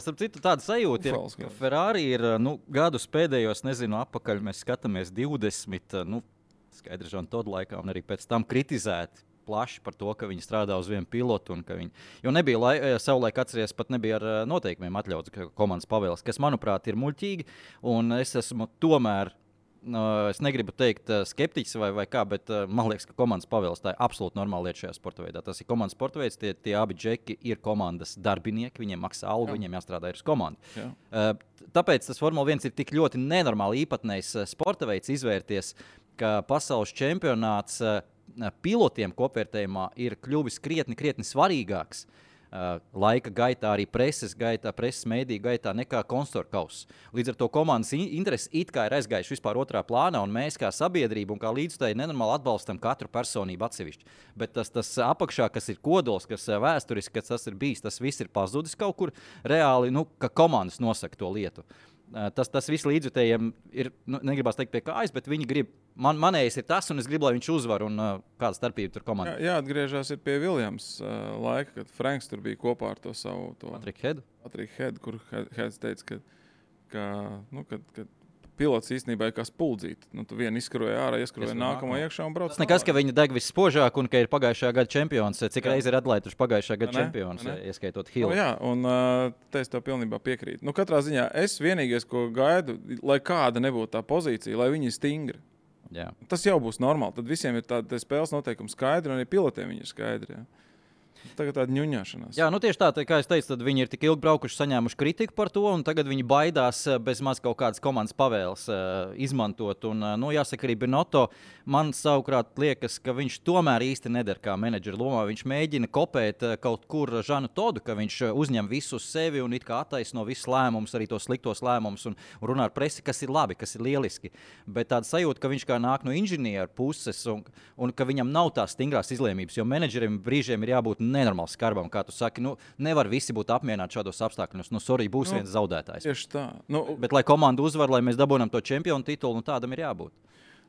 Starp citu, tāda sajūta ir, ka Ferrari ir gadus pēdējos, apakaļ mēs skatāmies 20, skaidrs, Žan Todd laikā un arī pēc tam kritizēti plaši par to, ka viņi strādā uz vienu pilotu. Jo nebija savulaik atceries, pat nebija ar noteikumiem atļauts komandas pavēles, kas, manuprāt, ir muļķīgi. Un es esmu tomēr, es negribu teikt skeptiķis vai kā, bet man liekas, ka komandas pavēles tā ir absolūti normāla lieta šajā sporta veidā. Tas ir komandas sporta veids, tie abi džeki ir komandas darbinieki, viņiem maksā algu, viņiem jāstrādā ir uz komandu. Tāpēc tas Formula 1 ir tik ļoti nenormāli īpatnējs sporta veids izvērties, ka pasaules čempionāts pilotiem kopvērtējumā ir kļuvis krietni svarīgāks laika gaitā, arī preses mēdīju gaitā nekā konstruktoru kauss. Līdz ar to komandas intereses it kā ir aizgājuši vispār otrā plānā, un mēs kā sabiedrība un kā līdzstēji nenormāli atbalstam katru personību atsevišķi. Bet tas apakšā, kas ir kodols, kas vēsturiski, kas tas ir bijis, tas viss ir pazudis kaut kur reāli, ka komandas nosaka to lietu. Tas viss līdzjutējiem ir, negribās teikt pie kājas, bet viņi grib, manējais ir tas, un es gribu, lai viņš uzvar, un kāda starpība tur komandā. Jāatgriežās ir pie Williams laika, kad Franks tur bija kopā ar to savu... Patrick Head, kur Heads teica, ka pilots īstenībā ir kā spuldzīte. Tu vienu izskaroja ārā, ieskaroja nākamo iekšā un brauc. Tas nekas, ka viņa deg visspožāk un ka ir pagājušajā gada čempions. Cik reizi ir atlaiduši pagājušajā gada čempions, ieskaitot Hillu. Un te es tev pilnībā piekrītu. Katrā ziņā es vienīgais, ko gaidu, lai kāda nebūtu tā pozīcija, lai viņi ir stingri. Jā. Tas jau būs normāli. Tad visiem ir tāda spēles noteikumi skaidri, un arī pilotiem viņi ir skaidri. Jā. Tagad tāda ņuņāšanās. Jā, tieši tā, kā es teicu, tad viņi ir tik ilgi braukuši, saņēmuši kritiku par to, un tagad viņi baidās bez maz kaut kādas komandas pavēles izmantot. Un, jāsaka, arī Binotto man savukārt liekas, ka viņš tomēr īsti neder kā menedžera lomā. Viņš mēģina kopēt kaut kur Žanu Todu, ka viņš uzņem visu uz sevi un it kā attaisno visus lēmumus, arī tos sliktos lēmumus un runā ar presi, kas ir labi, kas ir lieliski. Bet tāda sajūta, ka viņš kā nāk no inženieru puses un ka viņam nav tās stingrās izlēmības, jo menedžerim brīžiem ir jābūt nenormāli skarbam, kā tu saki. Nevar visi būt apmierināti šādos apstākļos. Sorry, būs viens zaudētājs. Tieši tā. Bet, lai komanda uzvar, lai mēs dabūjam to čempionu titulu, tādam ir jābūt.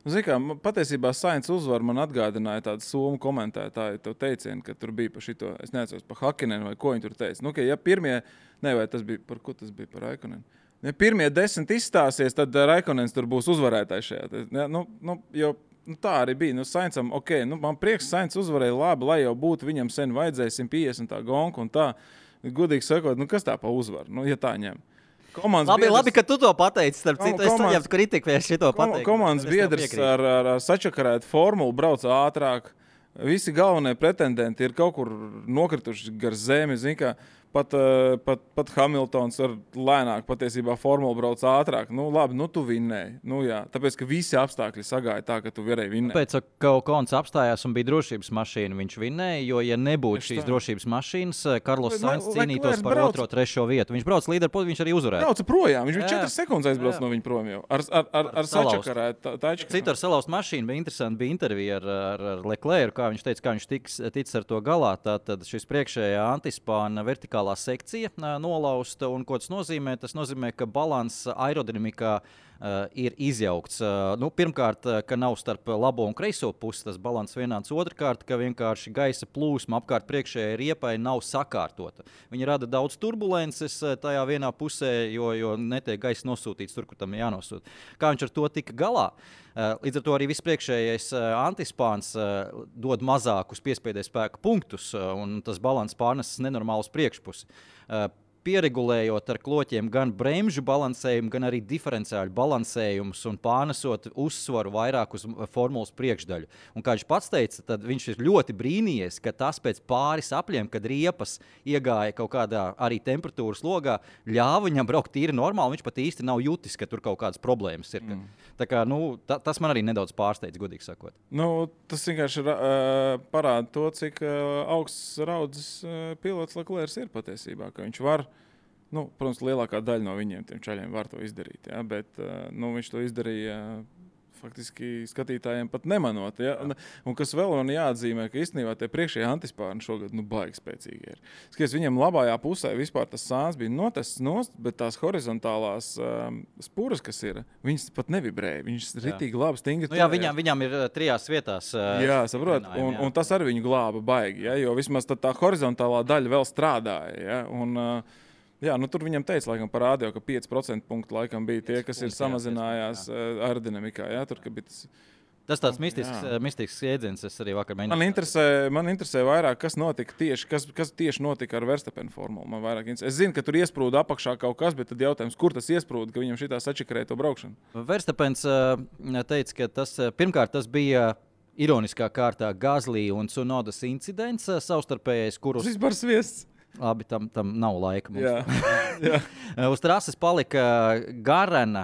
Zini kā, patiesībā Sainz uzvar man atgādināja tādu somu komentētāju to teicienu, ka tur bija par šito, es neatceros, par Hakinenu vai ko viņi tur teica. Ja pirmie, vai tas bija, par ko tas bija, par Raikonenu? Ja pirmie 10 izstāsies, tad Raikonens tur būs uzvarētājs šajā. Jo tā arī bija. Saincam, man prieks, Sainz uzvarēja labi, lai jau būtu viņam sen vajadzēja 150 tā gonka un tā. Godīgi sakot, kas tā pa uzvaru, ja tā ņem? Labi, ka tu to pateici. Starp citu, es saņemtu kritiku, ja es šito pateiktu. Komandas biedrs ar sačakarētu formulu brauc ātrāk. Visi galvenie pretendenti ir kaut kur nokrituši gar zemi. Pat Hamiltons ar lēnāk patiesībā formulu brauc ātrāk. Labi, tu vinnēji. Tāpēc, ka visi apstākļi sagāja tā, ka tu varēji vinnēt. Pēc ka Okons apstājās un bija drošības mašīna, viņš vinnēja, jo, ja nebūtu šīs drošības mašīnas, Karlos Sainz cīnītos par 2., 3. vietu. Viņš brauc līderi, viņš arī uzvarēja. Brauca projām, viņš bija 4 sekundes aizbrauc no viņa prom jau. Ar sačakarētu taču. Citu ar salauzt mašīnu bija interesanti, bija intervija ar Leclercu, kā viņš teica, kā viņš ticis ar to galā. Tātad šis priekšējā antispāna vertikālā sekcija nolausta, un ko tas nozīmē? Tas nozīmē, ka balanss aerodinamikā ir izjaukts. Pirmkārt, ka nav starp labo un kreiso pusi tas balanss vienāds. Otrkārt, ka vienkārši gaisa plūsma apkārt priekšējai riepai nav sakārtota. Viņi rada daudz turbulences tajā vienā pusē, jo netiek gaisa nosūtīts tur, kur tam jānosūta. Kā viņš ar to tika galā? Līdz ar to arī viss priekšējais antispāns dod mazākus piespiedes spēka punktus, un tas balanss pārneses nenormāli uz priekšpusi. Pieregulējot ar kloķiem gan bremžu balansējumu, gan arī diferenciāļu balansējumus un pārnesot uzsvaru vairāk uz formulas priekšdaļu. Un kā viņš pats teica, tad viņš ir ļoti brīnījies, ka tas pēc pāris apļiem, kad riepas iegāja kaut kādā arī temperatūras logā, ļāva viņam braukt tīri normāli, viņš pat īsti nav jutis, ka tur kaut kādas problēmas ir. Tā kā, tas man arī nedaudz pārsteidz, godīgi sakot. Tas vienkārši parāda to, cik augsts raudzes pilots Leclercs ir patiesībā, ka viņš var. Protams, lielākā daļa no viņiem, tiem čaļiem, var to izdarīt, ja? Bet viņš to izdarīja faktiski skatītājiem pat nemanot. Ja? Un kas vēl man jāatzīmē, ka īstenībā tie priekšējie antispārni šogad baigi spēcīgi ir. Skaties, viņiem labājā pusē vispār tas sāns bija notests nost, bet tās horizontālās spuras, kas ir, viņas pat nevibrēja. Viņas ritīgi labi stingri. Viņam ir 3 vietās. Jā, saprot. Un tas arī viņu glāba baigi, ja? Jo vismaz tā horizontālā daļa vēl strādāja. Ja? Tur viņam teica, laikam, parādīja, ka 5% punktu laikam bija tie, kas ir samazinājās aerodinamikā. Ja? Tur, ka bija tas tāds mistisks jēdziens, es arī vakar mēģināju. Man interesē vairāk, kas notika kas tieši notika ar Verstappen formulu. Es zinu, ka tur iesprūda apakšā kaut kas, bet tad jautājums, kur tas iesprūda, ka viņam šitā sačakarēja to braukšanu? Verstappens teica, ka pirmkārt tas bija ironiskā kārtā Gasly un Tsunodas incidents savstarpējais, kurus... Vispār sviests. Labi, tam nav laika mums. Jā. Uz trases palika garena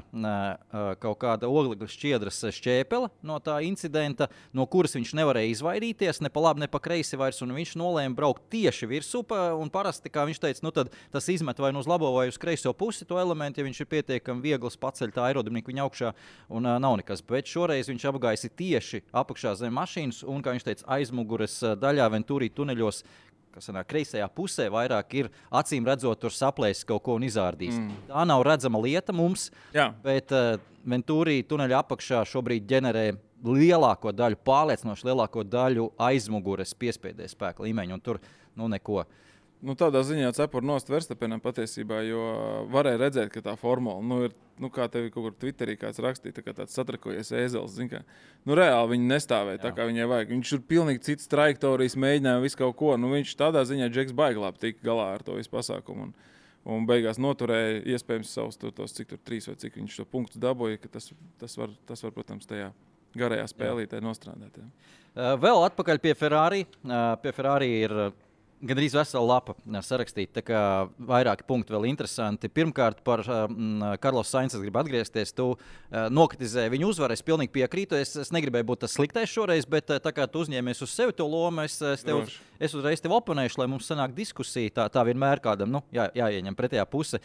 kaut kāda oglekļa šķiedras šķēpele no tā incidenta, no kuras viņš nevarēja izvairīties, ne pa labi, ne pa kreisi vairs, un viņš nolēma braukt tieši virsū, un parasti, kā viņš teica, tad tas izmet vai uz labo vai uz kreiso pusi to elementu, ja viņš ir pietiekami viegls paceļ tā aerodinamiku viņa augšā, un nav nekas. Bet šoreiz viņš apgaisi tieši apakšā zem mašīnas, un, kā viņš teica, aizmugures daļā Venturi tuneļos, kas kreisajā pusē vairāk ir acīm redzot, tur saplēsis kaut ko un izārdīs. Tā nav redzama lieta mums, bet Venturi tuneļa apakšā šobrīd ģenerē lielāko daļu, pārliecinoši lielāko daļu aizmugures piespiedes spēka līmeņa, un tur neko. Tādā ziņā cepur nost Verstappenam patiesībā, jo varēja redzēt, ka tā formula ir, kā tevi kaut kur Twitterī kāds rakstīja, tā kā tāds satrakojies ēzeles, reāli viņi nestāvēja tā, kā viņai vajag. Viņš ir pilnīgi cits trajektorijas, mēģināja visu kaut ko, viņš tādā ziņā Džeks baigi labi tika galā ar to visu pasākumu un beigās noturēja iespējams savus tos, cik tur 3 vai cik viņš to punktus dabūja, ka tas var, protams, tajā garajā spēlītē nostrādāt. Jā. Vēl atpakaļ pie Ferrari. Pie Ferrari ir gandrīz vesela lapa sarakstīta, tā kā vairāki punkti vēl interesanti. Pirmkārt, par Carlos Sainz es gribu atgriezties. Tu nokritizēji viņu uzvaru, es pilnīgi piekrītu. Es negribēju būt tas sliktais šoreiz, bet tā kā tu uzņēmies uz sevi to lomu, es uzreiz tev oponēšu, lai mums sanāk diskusija. Tā vienmēr kādam jāieņem pretējā puse.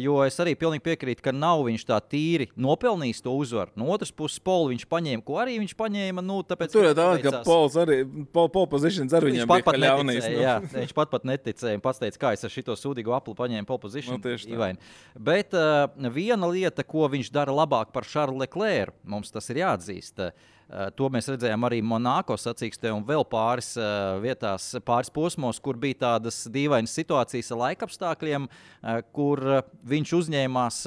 Jo es arī pilnīgi piekrītu, ka nav viņš tā tīri nopelnījis to uzvaru. No otras puses, Polu viņš paņēma, ko arī viņš paņēma. Tāpēc tur ir tā, ka Pols arī, pole positions ar viņam bija ļaunīs. Jā, viņš pat neticēja un pats teica, kā es ar šito sūdīgo apli paņēmu pole position. Bet viena lieta, ko viņš dara labāk par Charlesu Leclercu, mums tas ir jāatzīst. To mēs redzējām arī Monako sacīkstē un vēl pāris vietās, pāris posmos, kur bija tādas dīvainas situācijas ar laikapstākļiem, kur viņš uzņēmās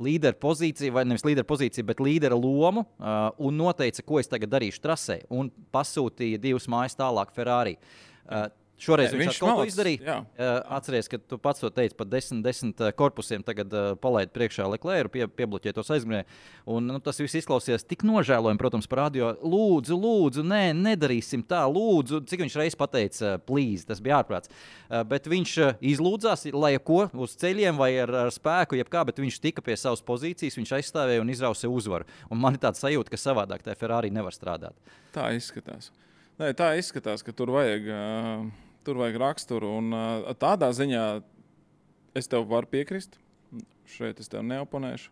līdera pozīciju, vai nevis līdera pozīciju, bet līdera lomu un noteica, ko es tagad darīšu trasē, un pasūtīja 2 mājas tālāk Ferrari. Šoreiz viņš kaut ko izdarīja. Atceries, ka tu pats to teici par 10 korpusiem, tagad palaid priekšā Leclercu, piebloķē tos aizmugurē. Un tas viss izklausījās tik nožēlojami, protams, par radio. Lūdzu, nedarīsim tā, lūdzu. Cik viņš reiz pateica, please, tas bija ārprāts. Bet viņš izlūdzās, lai ko, uz ceļiem vai ar spēku, jebkā, bet viņš tika pie savas pozīcijas, viņš aizstāvēja un izrausa uzvaru. Un man ir tāda sajūta, ka savādāk tā Ferrari nevar strādāt. Tā izskatās. Nē, tā izskatās, ka tur vajag raksturu. Un tādā ziņā es tev varu piekrist. Šeit es tev neoponēšu.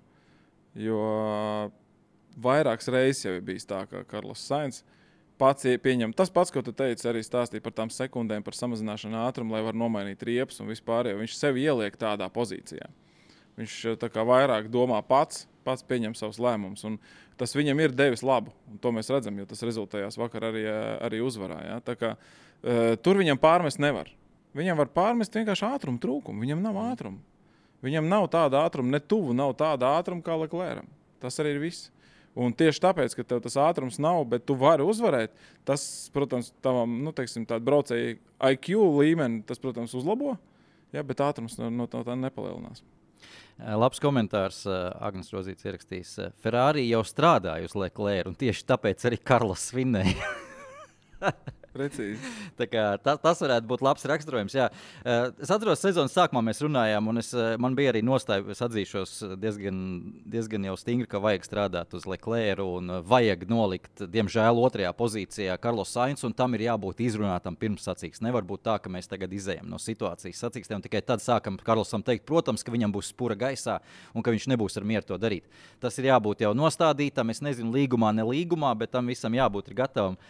Jo vairākas reizes jau ir bijis tā, ka Carlos Sainz pats pieņem. Tas pats, ko tu teici, arī stāstīja par tām sekundēm, par samazināšanu ātrumu, lai var nomainīt riepas un vispār. Viņš sevi ieliek tādā pozīcijā. Viņš tā kā vairāk domā pats pieņem savus lēmumus. Un tas viņam ir devis labu. Un to mēs redzam, jo tas rezultējās vakar arī uzvarā. Ja? Tā kā tur viņam pārmest nevar. Viņam var pārmest vienkārši ātrumu trūkumu. Viņam nav ātrumu. Viņam nav tāda ātruma, ne tuvu nav tāda ātruma kā Leclercam. Tas arī ir viss. Un tieši tāpēc, ka tev tas ātrums nav, bet tu vari uzvarēt, tas, protams, tavam, tādu braucēju IQ līmeni, tas, protams, uzlabo, ja, bet ātrums no tā nepalielinās. Labs komentārs Agnes Rozīts ierakstījis. Ferrari jau strādāja uz Leclercu, un tieši tāpēc arī Karlos svinēja. Precīzi. Tā kā, tas varētu būt labs raksturojums. Jā. Es atceros, sezonas sākumā mēs runājām, un man bija arī nostāja, es atzīšos diezgan jau stingri, ka vajag strādāt uz Leclercu un vajag nolikt, diemžēl, otrajā pozīcijā Carlos Sainz, un tam ir jābūt izrunātam pirms sacīksts. Nevar būt tā, ka mēs tagad izējam no situācijas sacīkstiem, un tikai tad sākam Carlosam teikt, protams, ka viņam būs spura gaisā un ka viņš nebūs ar mieru to darīt. Tas ir jābūt jau nostādītam, es nezinu, līgumā, ne līgumā, bet tam visam jābūt ir gatavam.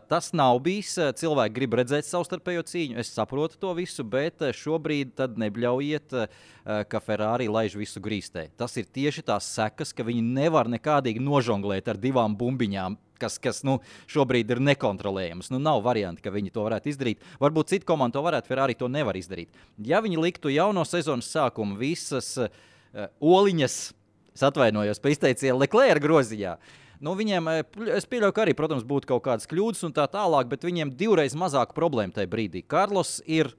Tas nav bijis. Cilvēki grib redzēt savstarpējo cīņu. Es saprotu to visu, bet šobrīd tad nebļaujiet, ka Ferrari laiž visu grīstē. Tas ir tieši tās sekas, ka viņi nevar nekādīgi nožonglēt ar 2 bumbiņām, kas šobrīd ir nekontrolējams. Nav varianti, ka viņi to varētu izdarīt. Varbūt cita komanda to varētu, Ferrari to nevar izdarīt. Ja viņi liktu jau no sezonas sākuma visas oliņas, es atvainojos pa izteicienu, Leclerca groziņā, viņiem, es pieļauju, ka arī, protams, būtu kaut kādas kļūdas un tā tālāk, bet viņiem 2 reizes mazāku problēmu tajā brīdī. Carlos ir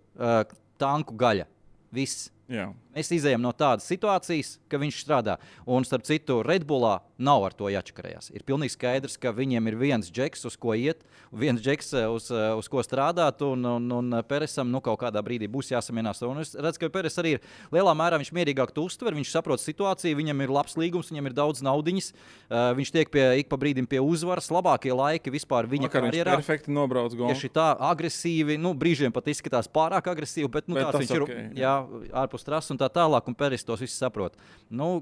tanku gaļa. Viss. Jā. Mēs izējām no tādas situācijas, ka viņš strādā. Un, starp citu, Red Bullā nav ar to jāčakarējās. Ir pilnīgi skaidrs, ka viņiem ir viens džeks, uz ko iet, viens džeks, uz ko strādāt, un Peresam kaut kādā brīdī būs jāsamienās. Un es redzu, ka Peres arī ir lielā mērā viņš mierīgāk to uztver, viņš saprot situāciju, viņam ir labs līgums, viņam ir daudz naudiņas, viņš tiek ik pa brīdim pie uzvaras, labākie laiki vispār viņa karjerā. Viņš perfekti nobrauc golfu. Tieši tā, agresīvi, brīžiem pat izskatās pārāk agresīvi, bet tāds viņš ir, jā, ārpus trases un tā tālāk, un Peres tos visus saprot.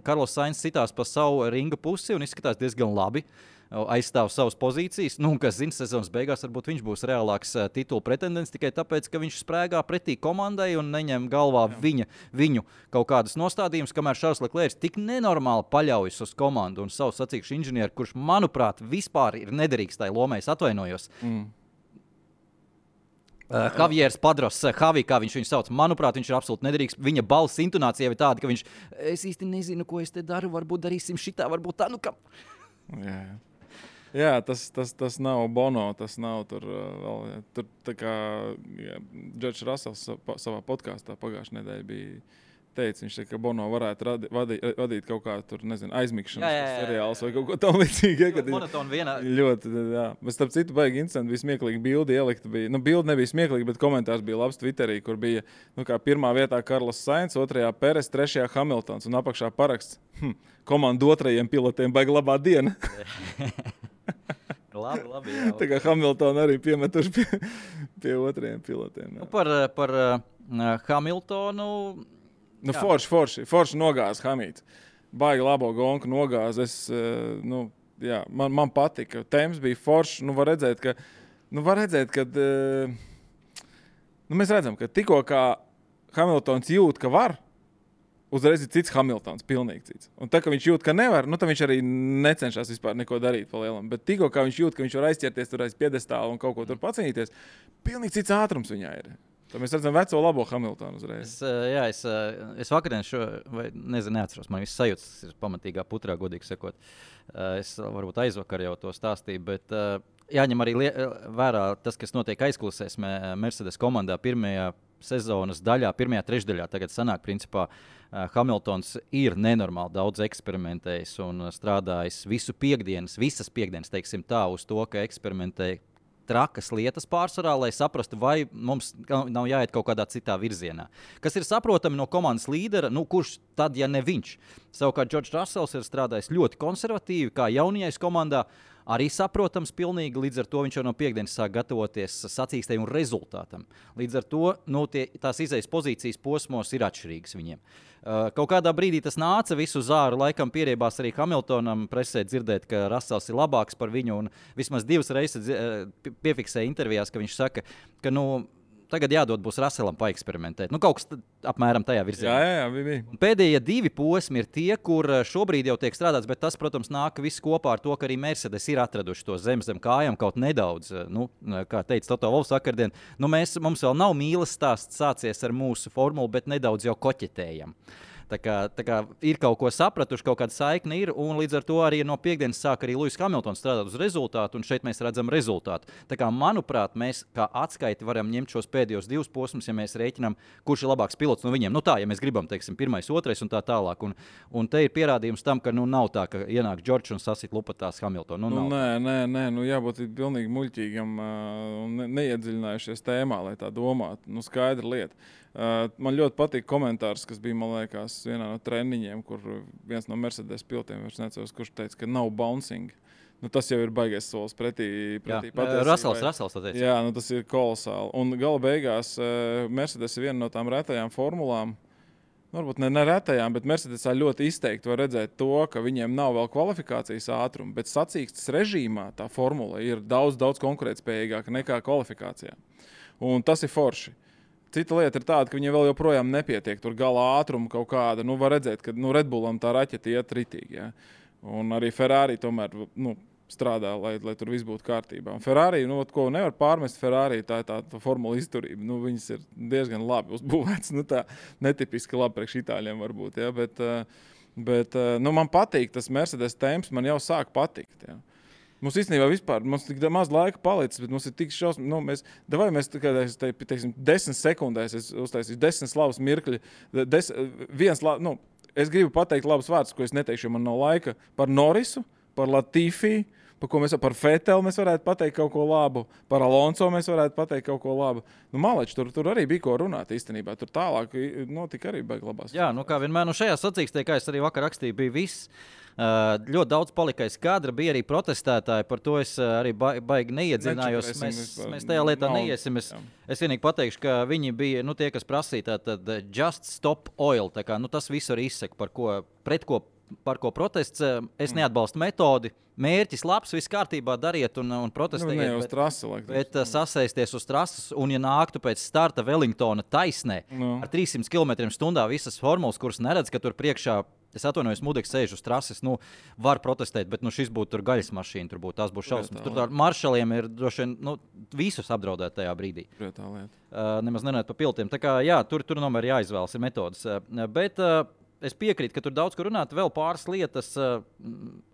Carlos Sainz citās pa savu ringa pusi un izskatās diezgan labi, aizstāv savas pozīcijas. Kas zina, sezonas beigās varbūt viņš būs reālāks titula pretendents tikai tāpēc, ka viņš sprēgā pretī komandai un neņem galvā viņu kaut kādus nostādījumus, kamēr Charles Leclerc tik nenormāli paļaujas uz komandu un savu sacīkšu inženieru, kurš, manuprāt, vispār ir nederīgs tai lomai, es atvainojos. Javieris Padros, Javi, kā viņš viņu sauc, manuprāt, viņš ir absolūti nederīgs. Viņa balss intonācija ir tāda, ka viņš, es īsti nezinu, ko es te daru, varbūt darīsim šitā, varbūt tā, Jā, tas nav Bono, tas nav tur vēl. Tur tā kā Džordžs Rasels savā podkāstā pagājušajā nedēļā bija teica, viņš teica, ka Bono varētu vadīt kaut kā tur, nezinu, aizmigšanas seriāls vai kaut ko tam līdzīgi. Ļoti monotoni vienā. Ļoti, jā. Bet starp citu baigi interesanti, bija smieklīgi bildi ielikta. Bildi nebija smieklīgi, bet komentārs bija labs Twitterī, kur bija, kā pirmā vietā Karlos Sainz, otrajā Peres, trešajā Hamiltons un apakšā paraksts. Komandu otrajiem pilotiem baigi labā diena. Labi, jā. Tā kā Hamiltonu arī piemetuši pie otrajiem pilotiem. Par Hamiltonu... Forši nogāz Hamīts. Baigi labo gonku nogāz. Man patika. Temps bija forši. Var redzēt, ka mēs redzam, ka tikko kā Hamiltons jūt, ka var, uzreiz ir cits Hamiltons, pilnīgi cits. Un tā, ka viņš jūt, ka nevar, tad viņš arī necenšas vispār neko darīt pa lielam. Bet tikko kā viņš jūt, ka viņš var aizķerties tur aiz piedestāla un kaut ko tur pacīnīties, pilnīgi cits ātrums viņā ir. Tad mēs redzam veco labo Hamiltonu uzreiz. Es vakardien neatceros, man viss sajūtas ir pamatīgā putrā, godīgi sakot. Es varbūt aizvakar jau to stāstīju, bet jāņem arī vērā tas, kas notiek aizkulisēs Mercedes komandā pirmajā sezonas daļā, pirmajā trešdaļā. Tagad sanāk, principā, Hamiltons ir nenormāli daudz eksperimentējis un strādājis visas piekdienas, teiksim tā, uz to, ka eksperimentēja trakas lietas pārsvarā, lai saprastu, vai mums nav jāiet kaut kādā citā virzienā. Kas ir saprotami no komandas līdera, kurš tad, ja ne viņš. Savukārt Džordžs Rasels ir strādājis ļoti konservatīvi, kā jaunajais komandā, arī saprotams pilnīgi, līdz ar to viņš jau no piekdienas sāk gatavoties sacīkstei un rezultātam. Līdz ar to tās izejas pozīcijas posmos ir atšķirīgas viņiem. Kaut kādā brīdī tas nāca visu zāru, laikam pieriebās arī Hamiltonam presē dzirdēt, ka Rasels ir labāks par viņu, un vismaz 2 reizes piefiksēja intervijās, ka viņš saka, ka tagad jādod būs Raselam paeksperimentēt. Kaut kas apmēram tajā virzienā. Jā, bija. Pēdējie 2 posmi ir tie, kur šobrīd jau tiek strādāts, bet tas, protams, nāk viss kopā ar to, ka arī Mercedes ir atraduši to zem kājām kaut nedaudz. Kā teica Toto Wolffs vakardien, mums vēl nav mīlas stāsts sācies ar mūsu formulu, bet nedaudz jau koķetējam. Tā kā ir kaut ko sapratuši, kaut kāda saikne ir, un līdz ar to arī no piekdienas sāk arī Lewis Hamiltons strādāt uz rezultātu, un šeit mēs redzam rezultātu. Tā kā, manuprāt, mēs kā atskaiti varam ņemt šos pēdējos 2 posmus, ja mēs rēķinām, kurš ir labāks pilots no viņiem. Ja mēs gribam, teiksim, 1., 2. un tā tālāk. Un te ir pierādījums tam, ka nav tā, ka ienāk Džordžs un sasit lupatās Hamiltonu. Nē, jābūt pilnīgi muļķīgam un neiedziļinājušies tēmā, lai tā domātu. Skaidra lieta. Man ļoti patīk komentārs, kas bija, man liekas, vienā no treniņiem, kur viens no Mercedes pilotiem, kurš teica, ka nav bouncing. Tas jau ir baigais solis pretī patiesībai. Rasels tā teica. Jā, tas ir kolosāli. Un gala beigās Mercedes ir viena no tām retajām formulām, varbūt ne retajām, bet Mercedesā ļoti izteikti var redzēt to, ka viņiem nav vēl kvalifikācijas ātruma, bet sacīkstes režīmā tā formula ir daudz konkurētspējīgāka nekā kvalifikācijā. Un tas ir forši. Cita lieta ir tāda, ka viņiem vēl joprojām nepietiek tur gala ātruma kaut kāda. Var redzēt, ka Red Bullam tā raķete iet ritīgi. Ja? Un arī Ferrari tomēr strādā, lai tur viss būtu kārtībā. Un Ferrari, ko nevar pārmest Ferrari, tā ir tā formula izturība. Viņas ir diezgan labi uzbūvētas. Tā netipiski labi priekš itāļiem varbūt. Ja? Bet man patīk tas Mercedes temps, man jau sāk patikt. Ja? Mums īstenībā vispār, mums tik maz laika palicis, bet mums ir tik šausmīgi, mēs teiksim, 10 sekundēs, es uztaisīšu 10 slavas mirkļi, es gribu pateikt labus vārdus, ko es neteikšu, jo man nav laika, par Norrisu, par Latifi, par Vettel mēs varētu pateikt kaut ko labu, par Alonso mēs varētu pateikt kaut ko labu. Maleči, tur arī bija ko runāt īstenībā, tur tālāk notika arī baigi labās. Jā, kā vienmēr, šajā sacīkstē, kā es arī vakar rakstīju, bija viss. Ļoti daudz palika aiz kadra, bija arī protestētāji, par to es arī baigi neiedziļinājos. Mēs tajā lietā neiesim. Es vienīgi pateikšu, ka viņi bija tie, kas prasīja tātad just stop oil. Tā kā, tas visu arī izsaka, par ko protests. Es neatbalstu metodi. Mērķis labs, viss kārtībā dariet un protestējiet. Bet sasēsties uz trases un, ja nāktu pēc starta Wellingtona taisnē ar 300 km/h visas formulas, kuras neredz, ka tur priekšā, es atvainojos, Mudeks sēž uz trases, var protestēt, bet šis būtu tur gaļas mašīna, tās būs šausmas. Tur maršaliem ir droši vien visus apdraudēt tajā brīdī. Nemaz nerunājot par pilotiem. Tā kā, jā, tur tomēr jāizvēlas ir metodas. Bet es piekrītu, ka tur daudz ko runāt. Vēl pāris lietas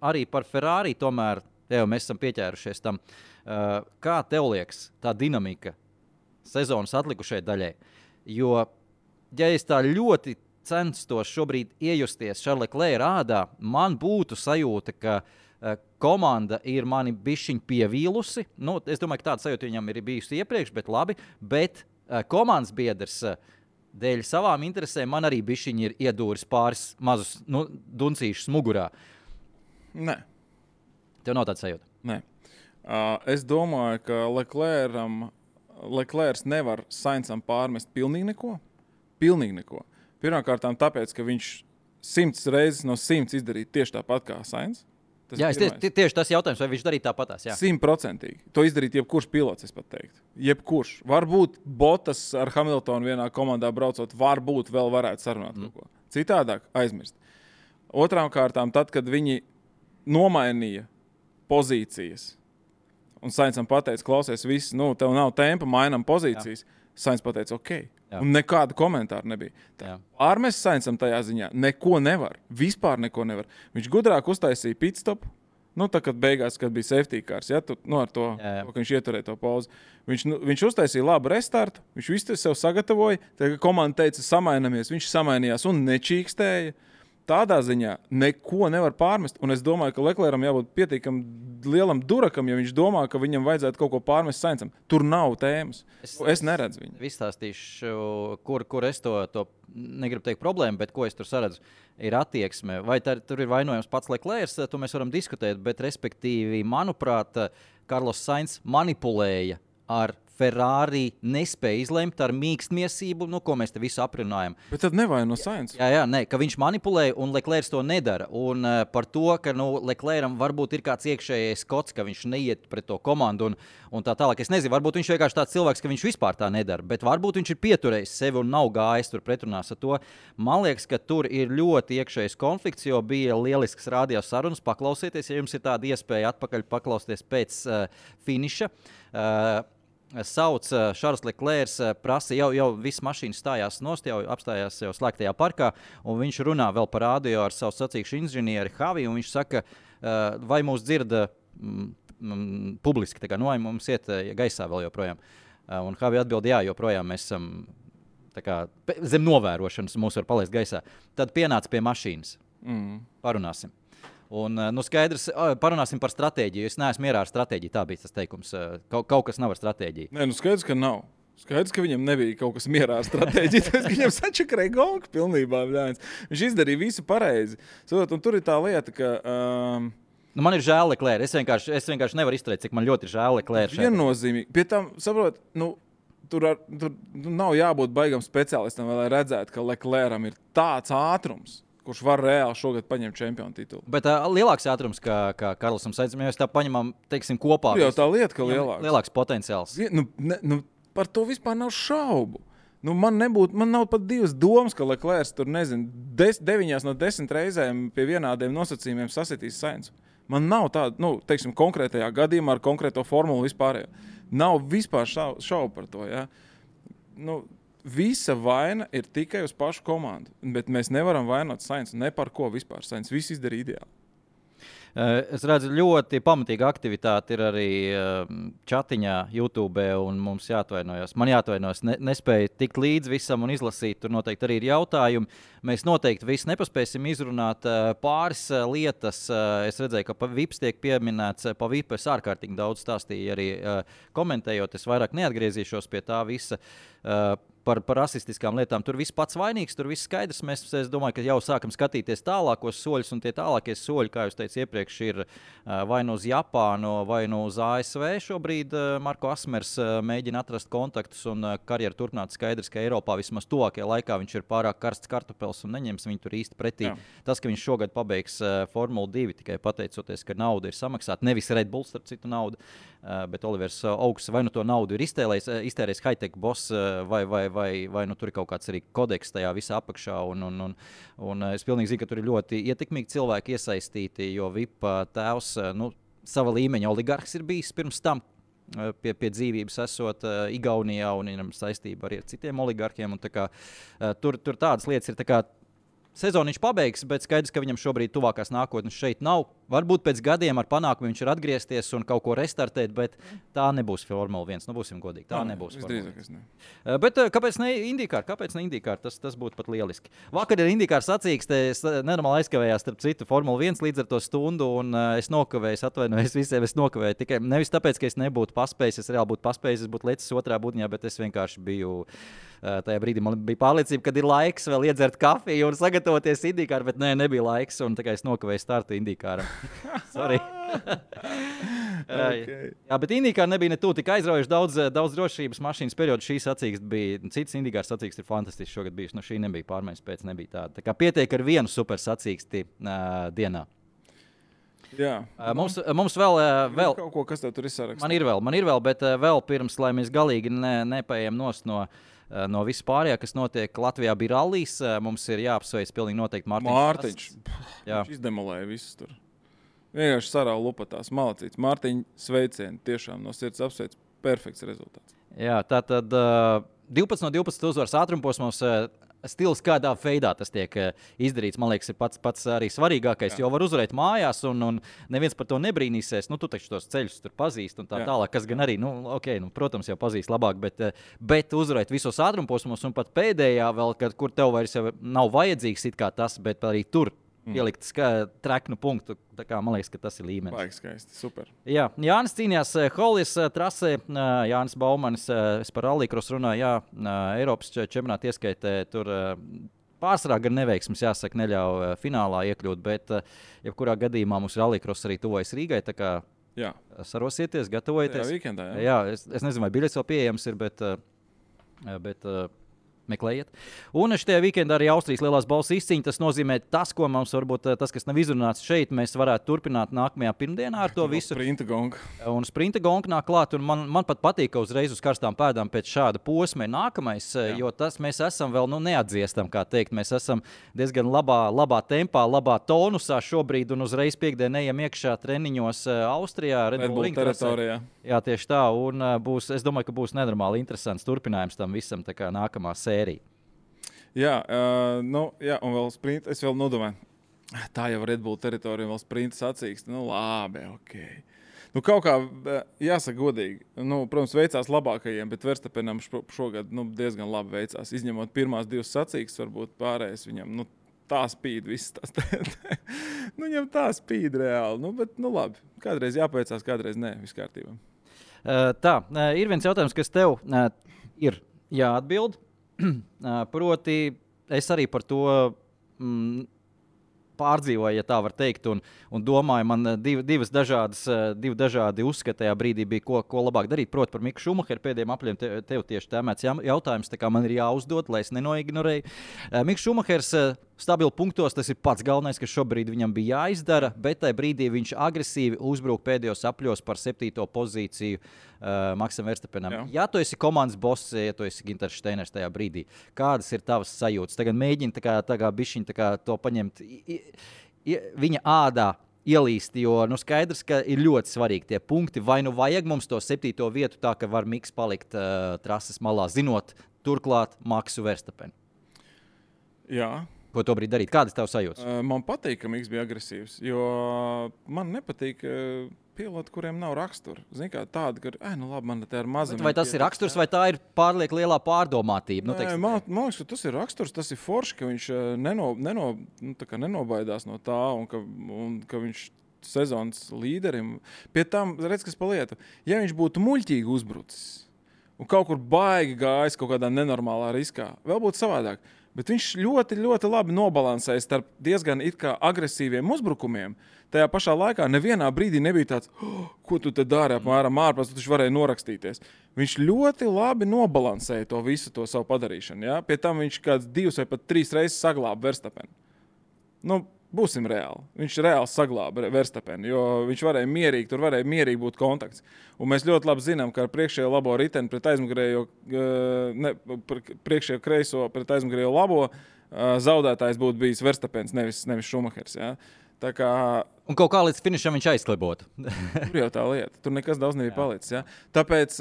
arī par Ferrari tomēr, mēs esam pieķērušies tam. Kā tev liekas tā dinamika sezonas atlikušai daļai? Jo, ja es tā ļoti censtos šobrīd iejusties Charles Leclerc ādā, man būtu sajūta, ka komanda ir mani bišķiņ pievīlusi. Nu, es domāju, ka tāda sajūta viņam ir bijusi iepriekš, bet labi. Bet komandas biedrs dēļ savām interesēm man arī bišķiņ ir iedūris pāris mazus duncīšus mugurā. Nē. Tev nav tāda sajūta? Nē. Es domāju, ka Leclerc nevar Sainzam pārmest pilnīgi neko. Pirmkārt, tāpēc, ka viņš 100 reizes no 100 izdarīja tieši tāpat kā Sainz. Jā, tieši tas jautājums, vai viņš darīja tāpatās. 100%. To izdarīt jebkurš pilots, es pat teiktu. Jebkurš. Varbūt Bottas ar Hamiltonu vienā komandā braucot, varbūt vēl varētu sarunāt kaut ko. Citādāk aizmirst. Otrām kārtām, tad, kad viņi nomainīja pozīcijas un Sainzam pateica, klausies, viss, tev nav tempa, mainam pozīcijas, Sainz pateica, ok. Jā. Un nekāda komentāra nebija. Ārmēs Sainzam tajā ziņā neko nevar. Vispār neko nevar. Viņš gudrāk uztaisīja pitstopu. Tā, kad beigās, kad bija safety cars, ar to, ka viņš ieturēja to pauzi. Viņš uztaisīja labu restartu, viņš visu sev sagatavoja. Tad, kad komanda teica, samainamies, viņš samainījās un nečīkstēja. Tādā ziņā neko nevar pārmest. Un es domāju, ka Leclercam jābūt pietiekam lielam durakam, ja viņš domā, ka viņam vajadzētu kaut ko pārmest Sainzam. Tur nav tēmas. Es neredzu viņu. Izstāstīšu, kur es to negribu teikt problēmu, bet ko es tur saredzu, ir attieksme. Vai tur ir vainojams pats Leclerc, to mēs varam diskutēt, bet respektīvi, manuprāt, Carlos Sainz manipulēja ar Ferrari, nespēja izlemt ar mīkstmiesību, ko mēs te visu aprunājam. Bet tad nevaino Sainz. Jā, ka viņš manipulēja un Leclerc to nedara. Un par to, ka Leclercam varbūt ir kāds iekšējais kods, ka viņš neiet pret to komandu un tā tālāk. Es nezinu, varbūt viņš vienkārši tāds cilvēks, ka viņš vispār tā nedara, bet varbūt viņš ir pieturējis sevi un nav gājis tur pretrunās ar to. Man liekas, ka tur ir ļoti iekšējais konflikts, jo bija lielisks radio sarunas. Paklausieties, ja jums ir tāda iespēja atpakaļ paklausties pēc finiša. Sauc Charles Leclerc, prasa, jau viss mašīnas stājās nost, jau apstājās jau slēgtajā parkā, un viņš runā vēl par radio ar savu sacīkšu inženieri Javi, un viņš saka, vai mūs dzirda publiski, tā kā vai mums iet gaisā vēl joprojām. Un Javi atbild, jā, joprojām mēs esam zem novērošanas, mūs var palaist gaisā. Tad pienāca pie mašīnas. Parunāsim. Un, skaidrs, parunāsim par stratēģiju. Es neesmu mierā ar stratēģiju. Tā bija tas teikums. Kaut kas nav ar stratēģiju. Nē, skaidrs, ka nav. Skaidrs, ka viņam nebija kaut kas mierā ar stratēģiju. Tāpēc, ka viņam sačakarēja gonku pilnībā. Viņš izdarīja visu pareizi. Un tur ir tā lieta, ka... man ir žēl Leclerc. Es vienkārši nevaru izturēt, cik man ļoti ir žēl Leclerc. Viennozīmīgi. Pie tam, saprot, tur nav jābūt baigam speciālistam, lai redzētu, ka Leclercam ir tāds ātrums, kurš var reāli šogad paņemt čempionu titulu. Bet lielāks ātrums, kā Karlsam Sainzam, ja mēs tā paņemam, teiksim, kopā. Jau tā lieta, ka lielāks potenciāls. Par to vispār nav šaubu. Man nav pat divas domas, ka Leclerc tur, 9 no 10 reizēm pie vienādiem nosacījumiem sasitīs Sainzu. Man nav tāda, teiksim, konkrētajā gadījumā ar konkrēto formulu vispārējo. Nav vispār šaubu par to, ja? Visa vaina ir tikai uz pašu komandu, bet mēs nevaram vainot Sainzu ne par ko vispār. Sainz viss izdarīja ideāli. Es redzu, ļoti pamatīga aktivitāte ir arī čatiņā, YouTube, un mums jāatvainojas. Man jāatvainojas, nespēju tikt līdz visam un izlasīt. Tur noteikti arī ir jautājumi. Mēs noteikti visu nepaspēsim izrunāt. Pāris lietas. Es redzēju, ka pa VIPs tiek pieminēts. Pa VIP es ārkārtīgi daudz stāstīju arī komentējot. Es vairāk neatgriezīšos pie tā visa. Par rasistiskām lietām. Tur viss pats vainīgs, tur viss skaidrs. Es domāju, ka jau sākam skatīties tālākos soļus, un tie tālākie soļi, kā jūs teicu iepriekš, ir vai nu uz Japānu, vai nu uz ASV. Šobrīd Marko Asmers mēģina atrast kontaktus un karjeru turpināt. Skaidrs, ka Eiropā vismaz tuvākajā laikā viņš ir pārāk karsts kartupels un neņems viņu tur īsti pretī. Jā. Tas, ka viņš šogad pabeigs Formulu 2, tikai pateicoties, ka nauda ir samaksāta, nevis Red Bull, starp citu naudu, bet Olivers Augs vai nu to naudu ir iztērējis high-tech boss vai tur ir kaut kāds arī kodeks tajā visā apakšā. Un es pilnīgi zinu, ka tur ir ļoti ietekmīgi cilvēki iesaistīti, jo VIP tēvs sava līmeņa oligarhs ir bijis pirms tam. Pie dzīvības esot Igaunijā un viņam saistība arī ar citiem oligarkiem. Un tur tādas lietas ir tā kā sezonu viņš pabeigs, bet skaidrs, ka viņam šobrīd tuvākās nākotnes šeit nav. Varbūt pēc gadiem ar panākumu viņš ir atgriezties un kaut ko restartēt, bet tā nebūs Formula 1. Nu, būsim godīgi, tā nebūs. Bet kāpēc ne IndyCar? Kāpēc ne IndyCar? Tas būtu pat lieliski. Vakar ir IndyCar sacīkste, es nenormāli aizkavējās starp citu Formula 1 līdz ar to stundu, un es nokavēju, atvainojos visiem, es nokavēju tikai nevis tāpēc, ka es nebūtu paspējis, es reāli būtu paspējis, es būtu lecis otrā būtņā, bet es vienkārši biju tajā brīdī, man bija pārliecība, kad ir laiks vēl iedzert kafiju un sagatavoties IndyCar, bet nebija laiks, un tā kā es nokavēju startu IndyCaram. Sorry. Okay. Jā, bet IndyCar nebija ne tuvu tik aizraujoši, daudz drošības mašīnas periodu. Šī sacīkste bija, cits IndyCar sacīkste ir fantastisks šogad bijuši. Šī nebija pārmaiņas pēc, nebija tāda. Tā kā pietiek ar vienu super sacīksti dienā. Jā. Mums vēl kaut ko, kas tev tur ir sarakstā? Man ir vēl, bet vēl pirms, lai mēs galīgi nepaējam no viss pārējā, kas notiek Latvijā, bija rallijs. Mums ir jāapsveic pilnīgi noteikti Mārtiņš. Viņš izdemolēja visus tur. Vienkārši sarāva lupatās, malacīts. Mārtiņ, sveicieni, tiešām no sirds apsveic. Perfekts rezultāts. Jā, tātad 12 no 12 uzvaras ātrumposmos. Stils, kādā veidā tas tiek izdarīts, man liekas, ir pats arī svarīgākais. Jo var uzvarēt mājās, un neviens par to nebrīnīsies. Tu taču tos ceļus tur pazīst, un tā tālāk, kas gan arī, protams, jau pazīst labāk, bet uzvarēt visos ātrumposmos, un pat pēdējā vēl, kur tev vairs nav vajadzīgs it kā tas, bet arī tur pielikt treknu punktu. Tā kā, man liekas, ka tas ir līmenis. Baigi skaisti, super. Jā, Jānis cīnījās Holijas trasē. Jānis Baumanis, es par rallycross runāju, Eiropas čempionāta ieskaitē tur pārsvarā gan neveiksmes, jāsaka, neļauj finālā iekļūt, bet jebkurā gadījumā mums rallycross arī tuvojas Rīgai, tā kā sarosieties, gatavojieties. Jā, weekendā, jā, es nezinu, vai biļets vēl pieejams ir, bet meklējiet. Un šajā weekendā arī Austrijas lielās balvas izcīņa. Tas nozīmē, ko mums varbūt tas, kas nav izrunāts šeit, mēs varētu turpināt nākamajā pirmdienā ar to visu. Sprinta gonga nāk klāt, un man pat patīk, ka uzreiz uz karstām pēdām pēc šāda posma ir nākamais, jo tas mēs esam vēl neatdziestam, kā teikt. Mēs esam diezgan labā tempā, labā tonusā šobrīd, un uzreiz piekdien ejam iekšā treniņos Austrijā, Red Bull teritorijā. Jā, tieši tā, un es domāju, ka būs nenormāli interesants turpinājums tam visam, tā kā nākamā sērija. Jā, un vēl sprint, es vēl nodomāju, tā jau Red Bull teritorija, vēl sprinta sacīkste, labi, ok. Kaut kā, jāsaka godīgi, protams, veicās labākajiem, bet Verstappenam šogad diezgan labi veicās, izņemot pirmās divas sacīkstes, varbūt pārējais viņam, tā spīd viss tas. Viņam tā spīd reāli, bet labi, kādreiz jāpaveicās, kādreiz nē, viss kārtībā. Tā, ir viens jautājums, kas tev ir jāatbild. Proti, es arī par to pārdzīvoju, ja tā var teikt, un domāju, man divi dažādi uzskati tajā brīdī bija, ko labāk darīt. Proti, par Miku Šumacheru pēdējiem apļiem tev tieši tēmēts jautājums, tā kā man ir jāuzdod, lai es nenoignorēju. Miks Šumachers stabili punktos, tas ir pats galvenais, kas šobrīd viņam bija jāizdara, bet tajā brīdī viņš agresīvi uzbruk pēdējos apļos par 7. pozīciju Maksam Verstappenam. Ja tu esi komandas boss, ja tu esi Ginters Steiners tajā brīdī, kādas ir tavas sajūtas? Tagad mēģini tā kā bišķiņ to paņemt viņa ādā ielīst, jo skaidrs, ka ir ļoti svarīgi tie punkti. Vai vajag mums to 7. vietu tā, ka var Miks palikt trases malā, zinot turklāt Maksu Verstappenu? Jā. Ko to brīdi darīt? Kādas tev sajūtas? Man patīk, ka Miks bija agresīvs, jo man nepatīk piloti, kuriem nav rakstura. Zini, kā tāda, ka, labi, man te ar mazam. Vai tas ir raksturs, vai tā ir pārlieku lielā pārdomātība? Man liekas, ka tas ir raksturs, tas ir forši, ka viņš nenobaidās no tā, un ka viņš sezonas līderim. Pie tam, redz, kas pa lietu, ja viņš būtu muļķīgi uzbrucis un kaut kur baigi gājis kaut kādā nenormālā riskā, vēl būtu savādāk. Bet viņš ļoti, ļoti labi nobalansēja starp diezgan it kā agresīviem uzbrukumiem. Tajā pašā laikā nevienā brīdī nebija tāds, ko tu te dari apmēram ārpus, tu taču varēji norakstīties. Viņš ļoti labi nobalansēja to visu to savu padarīšanu. Ja? Pie tam viņš kāds 2 vai pat 3 reizes saglāba Verstappenu. Būsim reāli. Viņš reāli saglāba Verstappenu, jo viņš varēja mierīgi būt kontakts. Un mēs ļoti labi zinām, ka ar priekšējo labo riteni pret aizmugurējo, priekšējo kreiso pret aizmugurējo labo zaudētājs būtu bijis Verstappens, nevis Šumachers. Ja? Tā kā Un kaut kā līdz finišam viņš aizklibotu. tur jau tā lieta. Tur nekas daudz nebija palicis. Ja? Tāpēc,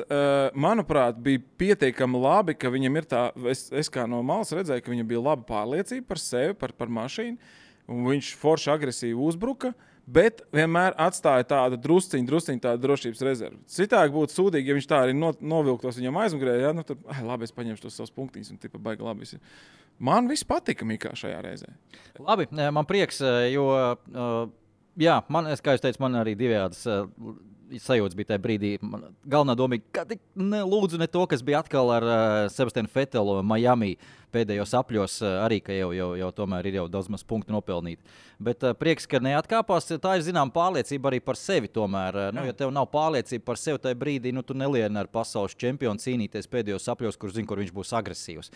manuprāt, bija pietiekami labi, ka viņam ir tā, es kā no malas redzēju, ka viņam bija laba pārliecība par sevi, par mašīnu, un viņš forši agresīvi uzbruka, bet vienmēr atstāja tādu drusciņu tādu drošības rezervi. Citādi būtu sūdīgi, ja viņš tā arī novilktos viņam aizmugurē, ja? Nu, tad, labi, es paņemšu tos savus punktiņus, un tipa baigi labi. Man viss patika Mikā šajā reizē. Labi, man prieks, jo... Jā, kā jūs teicat, man arī divējādas sajūtas bija tajā brīdī. Galvenā doma bija, ka lūdzu ne to, kas bija atkal ar Sebastianu Vetelu Miami pēdējos apļos, arī, ka jau tomēr ir jau daudz maz punktu nopelnīti. Bet prieks, ka neatkāpās, tā ir zinām pārliecība arī par sevi tomēr. Ja tev nav pārliecība par sevi tajā brīdī, tu nelieni ar pasaules čempionu cīnīties pēdējos apļos, kur zini, kur viņš būs agresīvs.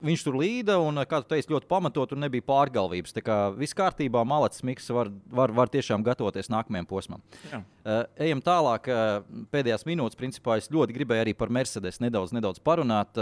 Viņš tur līda un, kā tu teici, ļoti pamatot un nebija pārgalvības. Tā kā viss kārtībā, malacis Miks var tiešām gatavoties nākamajam posmam. Ejam tālāk, pēdējās minūtes, principā es ļoti gribēju arī par Mercedes nedaudz parunāt.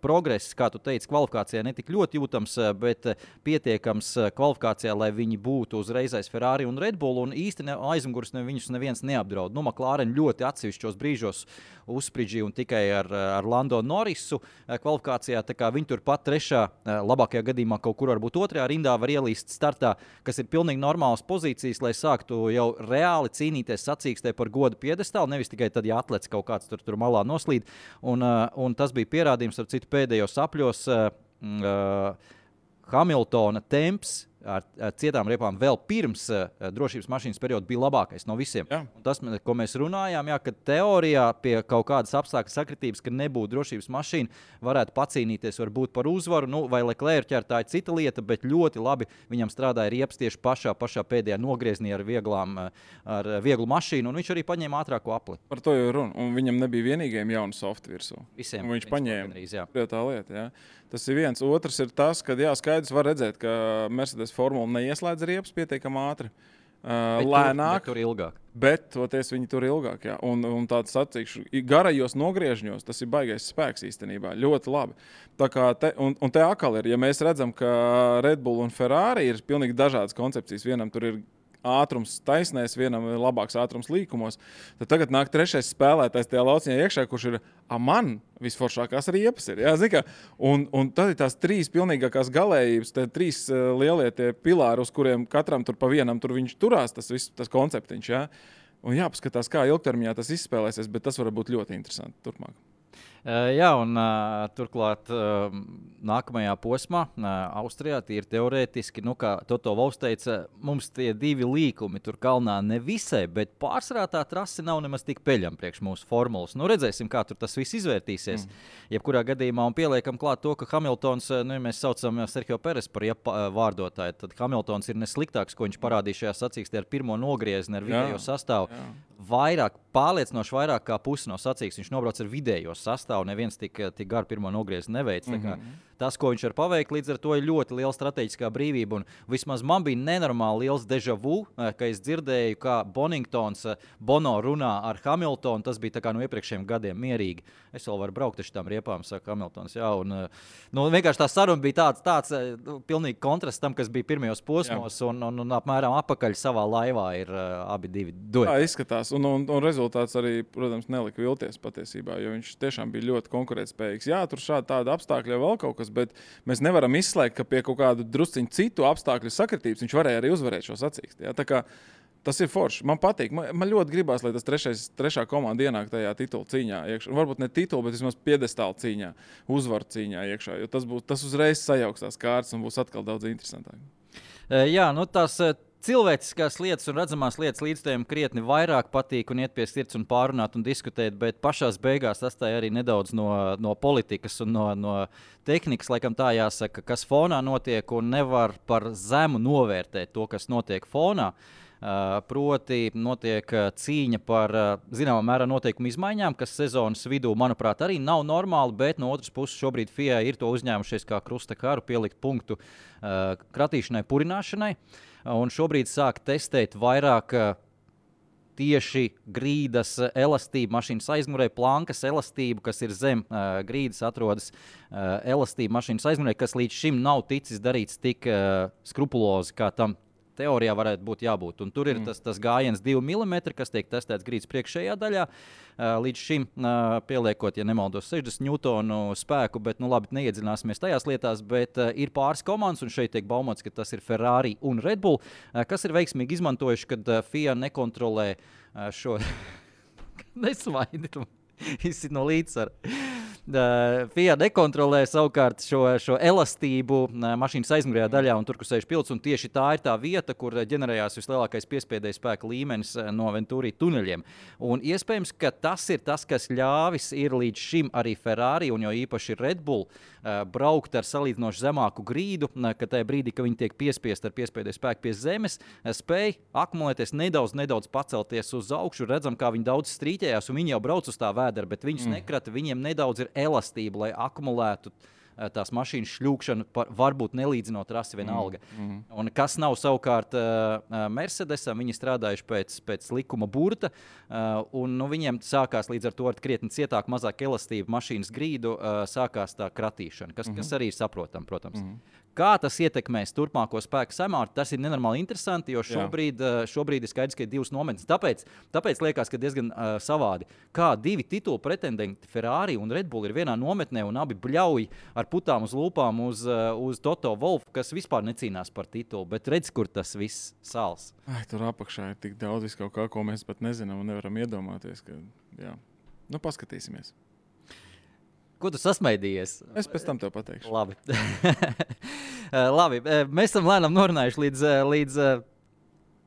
Progress, kā tu teici, kvalifikācijā netik ļoti jūtams, bet pietiekams kvalifikācijā, lai viņi būtu uzreiz aiz Ferrari un Red Bull, un īsti aizmugurs viņus neviens neapdraud. McLaren ļoti atsevišķos brīžos uzsprīdžīja un tikai ar Lando Norrisu kvalifikācijā, tā kā viņi turpat trešā, labākajā gadījumā kaut kur varbūt otrajā rindā var ielīst startā, kas ir pilnīgi normālas pozīcijas, lai sāktu jau reāli cīnīties sacīkstē par godu piedestālu, nevis tikai tad, ja atlets kaut kāds tur malā noslīd. Un tas bija pierādījums, ar citu pēdējos apļos, Hamiltona temps ar cietām riepām vēl pirms drošības mašīnas perioda bija labākais no visiem. Tas, ko mēs runājām, ka teorijā pie kaut kādas apstākļu sakritības, ka nebūtu drošības mašīna, varētu pacīnīties varbūt par uzvaru, vai Leclerc tā ir cita lieta, bet ļoti labi viņam strādāja riepas tieši pašā pēdējā nogrieznī ar vieglu mašīnu, un viņš arī paņēma ātrāko apli. Par to jau runa, un viņam nebija vienīgajiem jaunu softu virsū. Visiem. Un viņš paņēma. Tā lieta, jā. Tas ir viens. Otrs ir tas, ka skaidrs var redzēt, ka Mercedes formula neieslēdz riepas pietiekami ātri. Lēnāk. Tur ilgāk. Bet toties viņi tur ilgāk. Jā. Un tāds sacīkšu, garajos nogriežņos tas ir baigais spēks īstenībā. Ļoti labi. Tā kā un te atkal ir, ja mēs redzam, ka Red Bull un Ferrari ir pilnīgi dažādas koncepcijas. Vienam tur ir ātrums taisnēs, vienam ir labāks ātrums līkumos. Tad tagad nāk trešais spēlētājs tajā lauciņā iekšā, kurš ir man visforšākās riepas ir. Jā, zin, un tad ir tās trīs pilnīgākās galējības, tie trīs lielie tie pilāri, uz kuriem katram tur pa vienam tur viņš turās, tas konceptiņš. Jā. Un jāpaskatās, kā ilgtermiņā tas izspēlēsies, bet tas var būt ļoti interesanti turpmāk. Jā, un turklāt nākamajā posmā, Austrijā, tīri teorētiski, kā Toto Wolffs teica, mums tie divi līkumi tur kalnā nevisai, bet pārsvarā tā trase nav nemaz tik peļama priekš mūsu formulas. Redzēsim, kā tur tas viss izvērtīsies. Jebkurā gadījumā, un pieliekam klāt to, ka Hamiltons, ja mēs saucam Sergio Perez par vārdotāju, tad Hamiltons ir nesliktāks, ko viņš parādīja šajā sacīkstē ar pirmo nogriezni, ar vidējo sastāvu. Pārliecinoši vairāk kā pusi no sacīkstes viņš nobrauc ar vidējo sastāvu, neviens tik garu pirmo nogriezni neveic. Tas, ko viņš var paveikt, līdz ar to ir ļoti liela strateģiskā brīvība. Un vismaz man bija nenormāli liels déjà vu, ka es dzirdēju, kā Bono runā ar Hamiltonu. Tas bija tā kā no iepriekšējiem gadiem mierīgi. Es vēl varu braukt ar šitām riepām, saka Hamiltons. Jā, un vienkārši tā saruna bija tāds pilnīgi kontrasts tam, kas bija pirmajos posmos, un apmēram apakaļ savā laivā ir abi divi dueti. Tā izskatās, un rezultāts arī, protams, nelika vilties patiesībā, jo viņš tiešām bija ļoti konkurētspējīgs. Jā, tur tāda apstākļa vēl kaut kas, bet mēs nevaram izslēgt, ka pie kaut kādu drusciņu citu apstākļu sakritības viņš varēja arī uzvarēt šo sacīksti. Tā kā tas ir forši. Man patīk. Man ļoti gribās, lai tas trešā komanda ienāk tajā titula cīņā iekšā. Varbūt ne titula, bet vismaz piedestāla cīņā, uzvaru cīņā iekšā, jo tas uzreiz sajauks tās kārtas un būs atkal daudz interesantāk. Jā, tās cilvēciskās lietas un redzamās lietas līdzstājiem krietni vairāk patīk un iet pie sirds un pārunāt un diskutēt, bet pašās beigās atstāja arī nedaudz no politikas un no tehnikas, laikam tā jāsaka, kas fonā notiek, un nevar par zemu novērtēt to, kas notiek fonā. Proti notiek cīņa par zināmā mērā noteikumu izmaiņām, kas sezonas vidū, manuprāt, arī nav normāli, bet no otras puses šobrīd FIA ir to uzņēmušies kā krusta karu pielikt punktu kratīšanai, purināšanai, un šobrīd sāk testēt vairāk tieši grīdas elastību, mašīnas aizmugurē, plankas elastību, kas ir zem grīdas, atrodas elastība mašīnas aizmugurē, kas līdz šim nav ticis darīts tik skrupulozi, kā tam teorijā varētu būt jābūt. Un tur ir tas gājiens 2 mm, kas tiek testēts grīdas priekšējā daļā. Līdz šim pieliekot, ja nemaldos, 60 newtonu spēku, bet labi, neiedziļināsimies tajās lietās, bet ir pāris komandas, un šeit tiek baumots, ka tas ir Ferrari un Red Bull, kas ir veiksmīgi izmantojuši, kad FIA nekontrolē šo... Nesvaidi, izsit no līdzsvara. FIA nekontrolē savukārt šo elastību mašīnas aizmugurējā daļā un tur, kur sēž pilots, un tieši tā ir tā vieta, kur ģenerējās vislielākais piespēdēja spēka līmenis no Venturi tuneļiem. Un iespējams, ka tas ir tas, kas ļāvis ir līdz šim arī Ferrari un jo īpaši Red Bull braukt ar salīdzinoši zemāku grīdu, ka tajā brīdī, kad viņi tiek piespiest ar piespēdēja spēku pie zemes, spēj akumulēties nedaudz pacelties uz augšu, redzam, kā viņi daudz strīķējās, un viņi jau brauc uz tā vēdera, bet viņus nekrata, viņiem nedaudz ir elastība, lai akumulētu tās mašīnas šļūkšanu, varbūt nelīdzinot rasi vienalga. Un kas nav savukārt Mercedesam, viņi strādājuši pēc likuma burta, un viņiem sākās līdz ar to ar krietni cietāk, mazāk elastību mašīnas grīdu, sākās tā kratīšana, kas arī ir saprotam, protams. Kā tas ietekmēs turpmāko spēku samārtu, tas ir nenormāli interesanti, jo šobrīd ir skaidrs, ka ir divas nometnes. Tāpēc liekas, ka diezgan savādi. Kā divi titulu pretendenti Ferrari un Red Bull ir vienā nometnē un abi bļauj ar putām uz lūpām uz Toto Wolfu, kas vispār necīnās par titulu, bet redz, kur tas viss sāls. Tur apakšā ir tik daudz visu kaut kā, ko mēs pat nezinām un nevaram iedomāties. Jā. Paskatīsimies. Ko tu sasmaidījies? Es pēc tam tev pateikšu. Labi. Labi. Mēs esam lēnām norunājuši līdz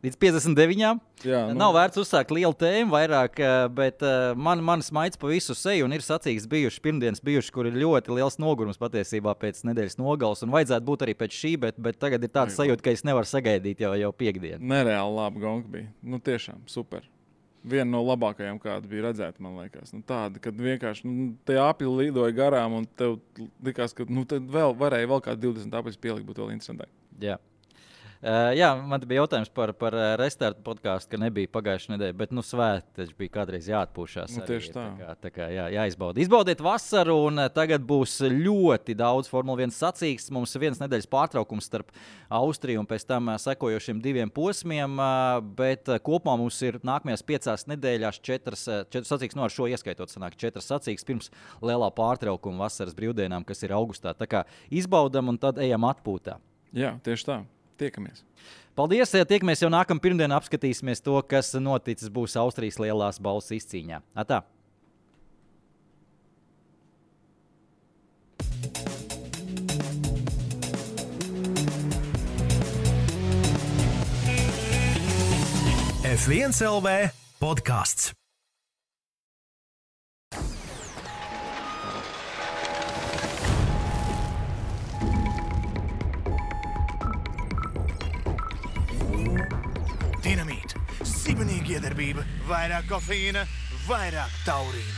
59. Jā, Nav vērts uzsākt lielu tēmu vairāk, bet man smaids pa visu seju un ir sacīgs pirmdienas bijuši, kur ir ļoti liels nogurums patiesībā pēc nedēļas nogales un vajadzētu būt arī pēc šī, bet tagad ir tāds sajūta, ka es nevaru sagaidīt jau piekdienu. Nereāli labi gonga bija. Tiešām super. Viena no labākajām, kāda bija redzēta, man liekas. Tāda, kad vienkārši tie apļi lidoja garām un tev likās, ka tad varēja vēl kādu 20 apļus pielikt, būtu vēl interesantāk. Jā. Jā, man bija jautājums par restartu podcastu, ka nebija pagājušā nedēļa, bet svēti taču bija kādreiz jāatpūšās. Tieši tā. Tā kā jāizbauda. Izbaudiet vasaru un tagad būs ļoti daudz Formula 1 sacīks. Mums ir vienas nedēļas pārtraukums starp Austriju un pēc tam sekojošiem 2 posmiem, bet kopumā mums ir nākamajās 5 nedēļās 4 sacīks, ar šo ieskaitot sanāk 4 sacīks pirms lielā pārtraukuma vasaras brīvdienām, kas ir augustā. Tā kā izbaudam un tad ejam atpūtā. Jā, tieši tā. Tiekamies. Paldies! Tiekamies jau nākamā pirmdienā, apskatīsimies to, kas noticis būs Austrijas lielās balvas izcīņā. Atā! F1 LV podcasts. Dinamīt, sibenīga iedarbība, vairāk kofeīna, vairāk taurīna.